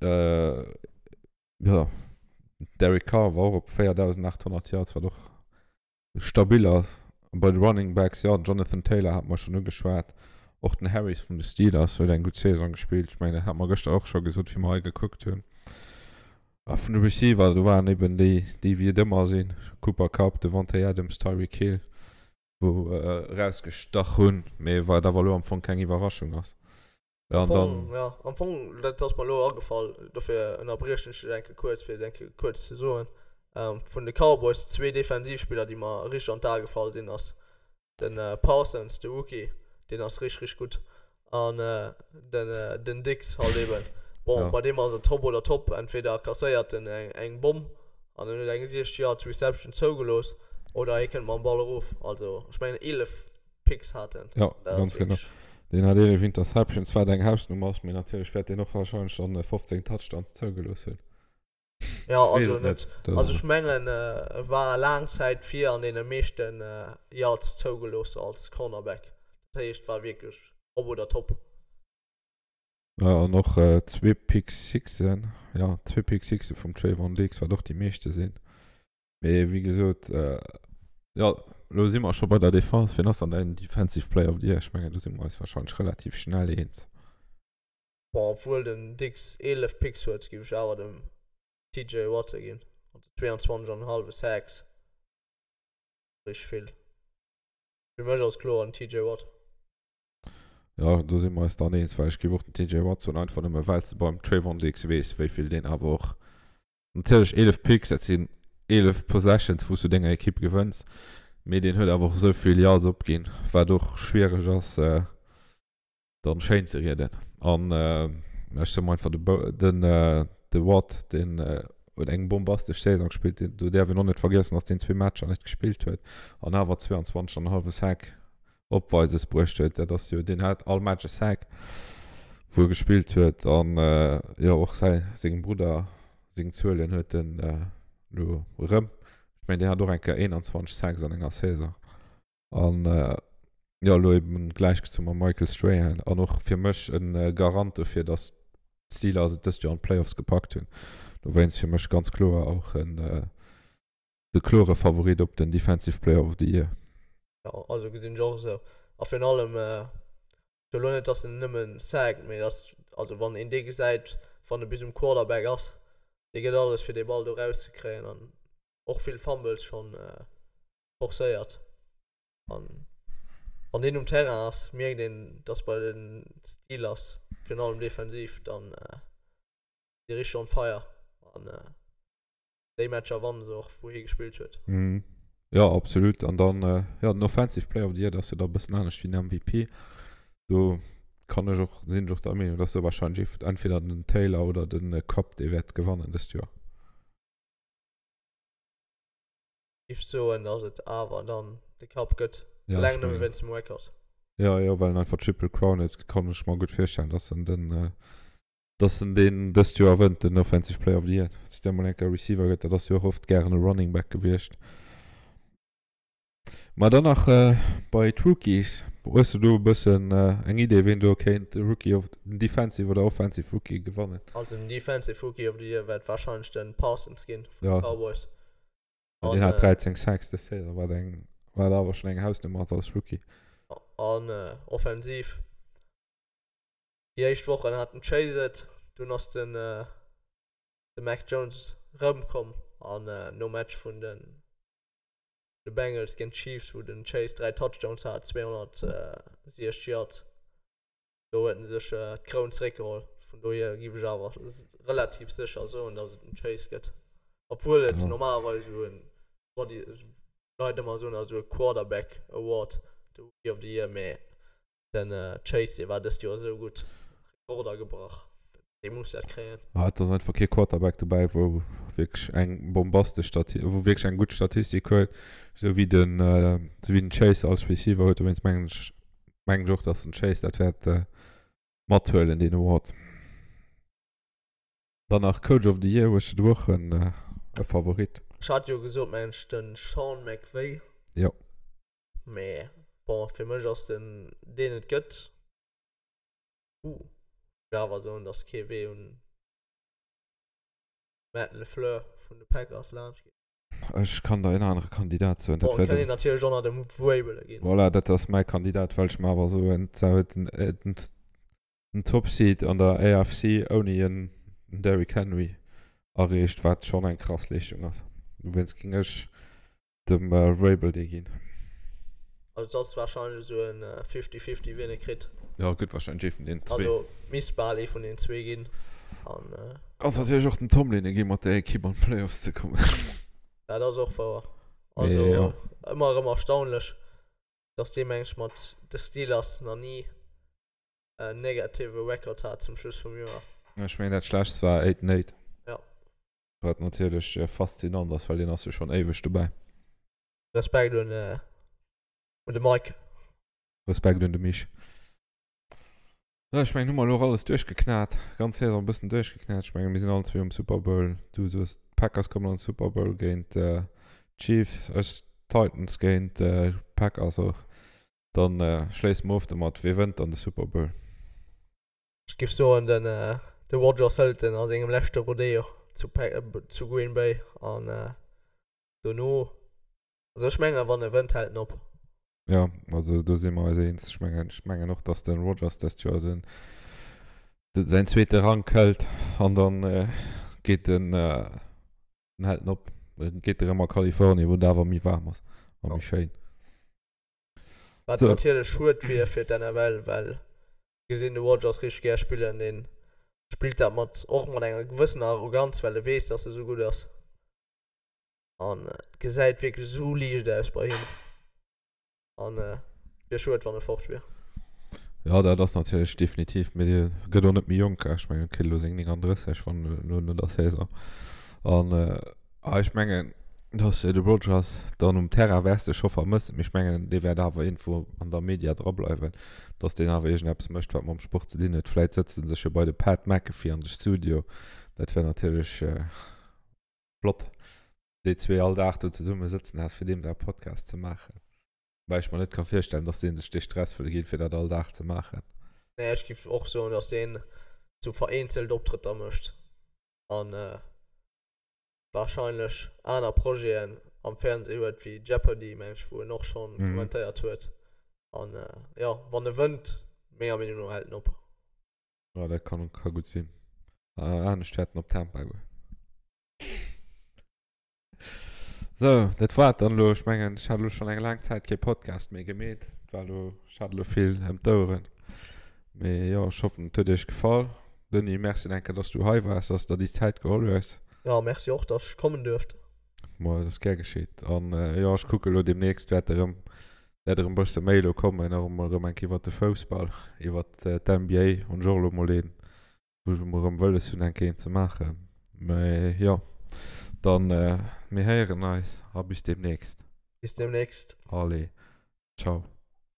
A: Äh, ja, Derek Carr war och op 4.800 Yards, wat och stabil ass. Bei de Running Backs, ja, Jonathan Taylor hat mer schonn ugeschwat. Och den Harris vun de Steelers huet eng gutt Saison gespillt. Ech mengen, dat hat mer gëschter och scho gesot, wéi mer hei gekuckt hunn. A vun de Receiver, do waren eben déi, déi wéi et ëmmer sinn, Cooper Kupp, Davante Adams, Tyreek Hill, wou erausgestach hunn, mee wat awer elo am Fong keng Iwwerraschung ass.
B: Ja, an dann. Ja, am Fong, dat ass mer elo agefall, dofir ënnerbriechen ech dech eng Kéier kuerz, fir et eng Kéier kuerz ze soen. Vun de Cowboys zwee Defensivspiller, déi mer richteg an d'Ae gefall sinn, ass de Parsons, de Rookie, deen ass richteg, richteg gutt, an den, den Diggs halt eben. Bon, ja. bei deem ass et Hopp oder Topp, entweder kasséiert en eng, eng Bomm an en huet eng 60 Yards Reception zougelooss, oder hie kënnt mam Ball erof. Also, ech mengen 11 Picks hat en.
A: Ja, ganz genau. Deen hat 11 Interceptions, wat eng Hausnummer ass, mee natierlech wäert deen och warscheinlech dann 15 Touchdowns zougelooss hunn.
B: Ja, also net. Also ech mengen, e war laang Zäit vir an deene meeschten Yards zougelooss als Cornerback. Dat heescht, war wierklech op oder top.
A: Ja, an och zwee Pick Sixen, ja, zwee Pick Sixe vum Trevon Diggs, wat och déi meeschte sinn. Mee wéi gesot, jo, elo si mer scho bei der Defense. Wien ass dann däin Defensive Player of the Year? Ech mengen, do si mer eis warscheinlech relativ schnell eens.
B: Bon, obwuel den Diggs 11 Picks huet, géif ech awer dem TJ Watt e ginn. Also 22 an en hallwe Sacks, richteg vill. Fir mech ass kloer den TJ Watt.
A: Jo, do si mer eis dann eens, well ech géif och den TJ Watt soen, einfach nëmme well s de beim Trevon Diggs weess, wéi vill deen awer och, natierlech 11 Picks, dat sinn 11 Possessions, wou s du denger Ekipp gewënns, mee deen huet awer och esou vill Yards opginn, wat och schwiereg ass dann schéin ze rieden. An ech soe mer einfach, de de Watt, deen huet eng bombastesch Saison gespillt, do däerf een och net vergiessen, datt deen zwee Matcher net gespillt huet an awer 22 an e hallwe Sack Opweises bruecht huet. Dat ass jo, deen hat all Match e Sack, wou e gespillt huet. An jo, och säi, sengem Brudder seng Zuelen huet en elo erëm. Ech mengen, deen hat och eng Kéier 21 Sacks an enger Saison. An jo, elo eben gläichgezu mam Michael Strahan. An och fir mech e Garant dofir, datt d'Steelers et dëst Joer an d'Playoffs gepackt hunn. Dowéinst fir mech ganz kloer och en de klore Favorit op den Defensive Player of the Year.
B: Jo, also gesinn ech och esou. A virun allem, ech elo net, dass en nëmmen sackt, mee dass, also wann een dee gesäit, wann e bis um Quarterback ass, dee gëtt alles fir dee Ball do erauszekréien an och vill Fumbles schonn forcéiert. An wann deen um Terrain ass, mierkt een, dass bei de Steelers, virun allem defensiv, dann si richteg on fire an déi Matcher wannen se och, wou hie gespillt huet.
A: Mhm. Jo, absolut. An dann, äh, jo, den Offensive Player of the Year, dat ass jo da e bëssen anescht wéi den MVP. Do kann ech och, sinn ech och der Meenung, dass do wahrscheinlech ee, entweder den Taylor oder den äh, Kupp, dee wäert gewannen dëst Joer.
B: Giff soen, dass et awer dann de Kupp gëtt.
A: Ja,
B: Eleng
A: ech
B: nëmme
A: mengen.
B: wéinst dem Record.
A: Ja, jo, well en einfach Triple Crown huet, kann ech mer gutt virstellen, dass en den, äh, Dass en deen dëst Joer wënnt, den Offensive Player of the Year. Dass et da mol eng Kéier Receiver gëtt, dat ass jo och oft gären e Running Back gewiescht. Ma dann nach bei d'Rookies. Hues du do e bëssen eng Idee, ween do kéint de Rookie of, den Defensive oder Offensive Rookie gewannen?
B: Also den Defensive Rookie of the Year wäert warscheinlech de Parsons ginn vun de
A: Ja.
B: Cowboys.
A: An deen hat 13 Sacks dës Saison, wat eng, wat awer schonn eng Hausnummer ass als Rookie.
B: An offensiv Déi éischt Wochen hat den Chase et, dunn ass den de Mac Jones rëmkomm an nom Match vun de de Bengals géint d'Chiefs, wou den Chase 3 Touchdowns hat, 260 Yards, do huet en sech d'Kroun zeréckgeholl. Vun dohier giff ech awer relativ sécher soen, datt et den Chase gëtt, obwuel et normalerweis esou en Body Leit ëmmer soen, esou e Quarterback Award, de Rookie of the Year, mee Den Chase dee war dëst Joer esou gutt, Rekorder gebrach, dee muss dat kréien.
A: Ah, et ass einfach kee Quarterback dobäi, wou wierklech eng bombastesch Stati-, wou wierklech eng gutt Statistik huet, esou wéi den, esou wéi den Chase als Receiver huet. Dowéinst mengen ech, mengen ech och, dass den Chase dat wäert mathuelen, deen Award. Dann nach Coach of the Year, hues du do och en e Favorit?
B: Ech hat jo gesot, mengen ech, de Sean McVay.
A: Jo.
B: Mee bon, fir mech ass den deen et gëtt. Uh, ech wëll awer soen, dass kee Wee un Matt LaFleur vun de Packers laanscht geet.
A: Ech kann der en anere Kandidat soen,
B: dat wär den. Bon, et kann een natierlech och nach dem Vrabel ginn.
A: Voilà, dat ass mäi Kandidat, well ech mer awer soen, zwar huet en den Top Seed an der AFC ouni en Derrick Henry erreecht, wat schonn eng krass Leeschtung ass. Dowéinst géing ech dem Vrabel dee ginn.
B: Also et ass wahrscheinlech esou en 50-50 wien e kritt.
A: Jo, et gëtt wahrscheinlech ee vun deenen zwee.
B: Also misst bal ee vun deenen zwee ginn. An.
A: Ass natierlech och dem Tomlin e gi mat där Ekipp an d'Playoffs ze kommen.
B: Dat ass och wouer. Also
A: Mee jo.
B: ëmmer erëm erstaunlech, dass dee mengt mat de Steelers nach ni en negative Record hat zum Schluss vum Joer.
A: Ech mengen dat schlechtst war 8 and 8.
B: Ja.
A: Wat natierlech faszinant ass, well deen ass jo schonn éiweg dobäi.
B: Respekt un un de Mike.
A: Respekt un de Mich. Jo, ech mengen, hu mer elo och alles duerchgeknat, ganz Saison e bëssen duerchgeknat. Ech mengen, mir sinn allen zwee um Super Bowl. Du soos, d'Packers kommen an de Super Bowl géint d'Chiefs, ech d'Titans géint d'Packers och. Dann schléisse mer of domat, Wee wënnt dann de Super Bowl?
B: Ech giff soen den de Rodgers hëlt en a sengem leschte Rodeo zu zu Green Bay an dono, also ech mengen wann e wënnt hält en op.
A: Jo, also do si mer eis eens. Ech mengen ech mengen och dass den Rodgers dëst Joer den de säin zweete Rank hëlt an dann geet en den hält en op, geet erëm a Kalifornien wou et awer méi waarm ass a méi schéin.
B: Wat natierlech schued wier fir d'NFL, well. Gesinn de Rodgers richteg gär spillen. Deen spillt dat mat och mat enger gewëssener Arroganz, well e weess, dass e sou gutt ass. An et gesäit wierklech esou liicht aus bei him. An wier schued, wann e fort wier.
A: Jo, dat ass natierlech definitiv, mee dee gëtt och net méi jonk. Ech mengen, e kritt elo seng 39, wann elo no der Saison. An ech mengen, dass de Rodgers dann um Terrain wäers de scho vermëssen, mee ech mengen, dee wäert awer iergendwou an der Media drableiwen, dass deen awer iergendeppes mécht, wat mam Sport ze dinn huet. Vläit sëtzt en sech jo bei de Pat McAfee an de Studio. Dat wär natierlech flott, déi zwee all Dag do zesumme sëtzen häss, fir deem säi Podcast ze maachen. Woubäi ech mer net ka virstellen, dass dee sech dee Stress wëll ginn, fir dat all Dag ze maachen.
B: Nee, ech giff och soen, dass deen sou vereenzelt Optrëtter mécht an wahrscheinlech aner Projeten am Fernseh huet wéi Jeopardy, meng ech, wou en och schonn kommentéiert huet. An jo, wann e wënnt, menger Meenung no hält en op.
A: Jo, dat kann, ka gutt sinn. Anescht wäert en op Tampa goen. Sou, dat war et dann elo. Ech mengen, ech hat elo schonn eng laang Zäit kee Podcast méi gemeet. Et war elo, ech hat elo vill ëm d'Oueren. Mee jo, ech hoffen, et huet iech gefall. Denis, merci nach eng Kéier, dass du hei waars, dass du der déi Zäit geholl hues.
B: Jo, merci och, dass ech kommen duerft.
A: Ma et ass gär geschitt. An jo, ech kucke elo deemnächst wäert erëm, wäert erëm e bësse méi elo kommen, och emol erëm eng Kéier iwwert de Foussball, iwwert d'NBA hunn ech och elo mol een wou ech emol erëm wëlles hunn eng Kéier een ze maachen. Mee jo, dann mir héieren eis a bis deemnächst.
B: Bis deemnächst.
A: Allez, ciao.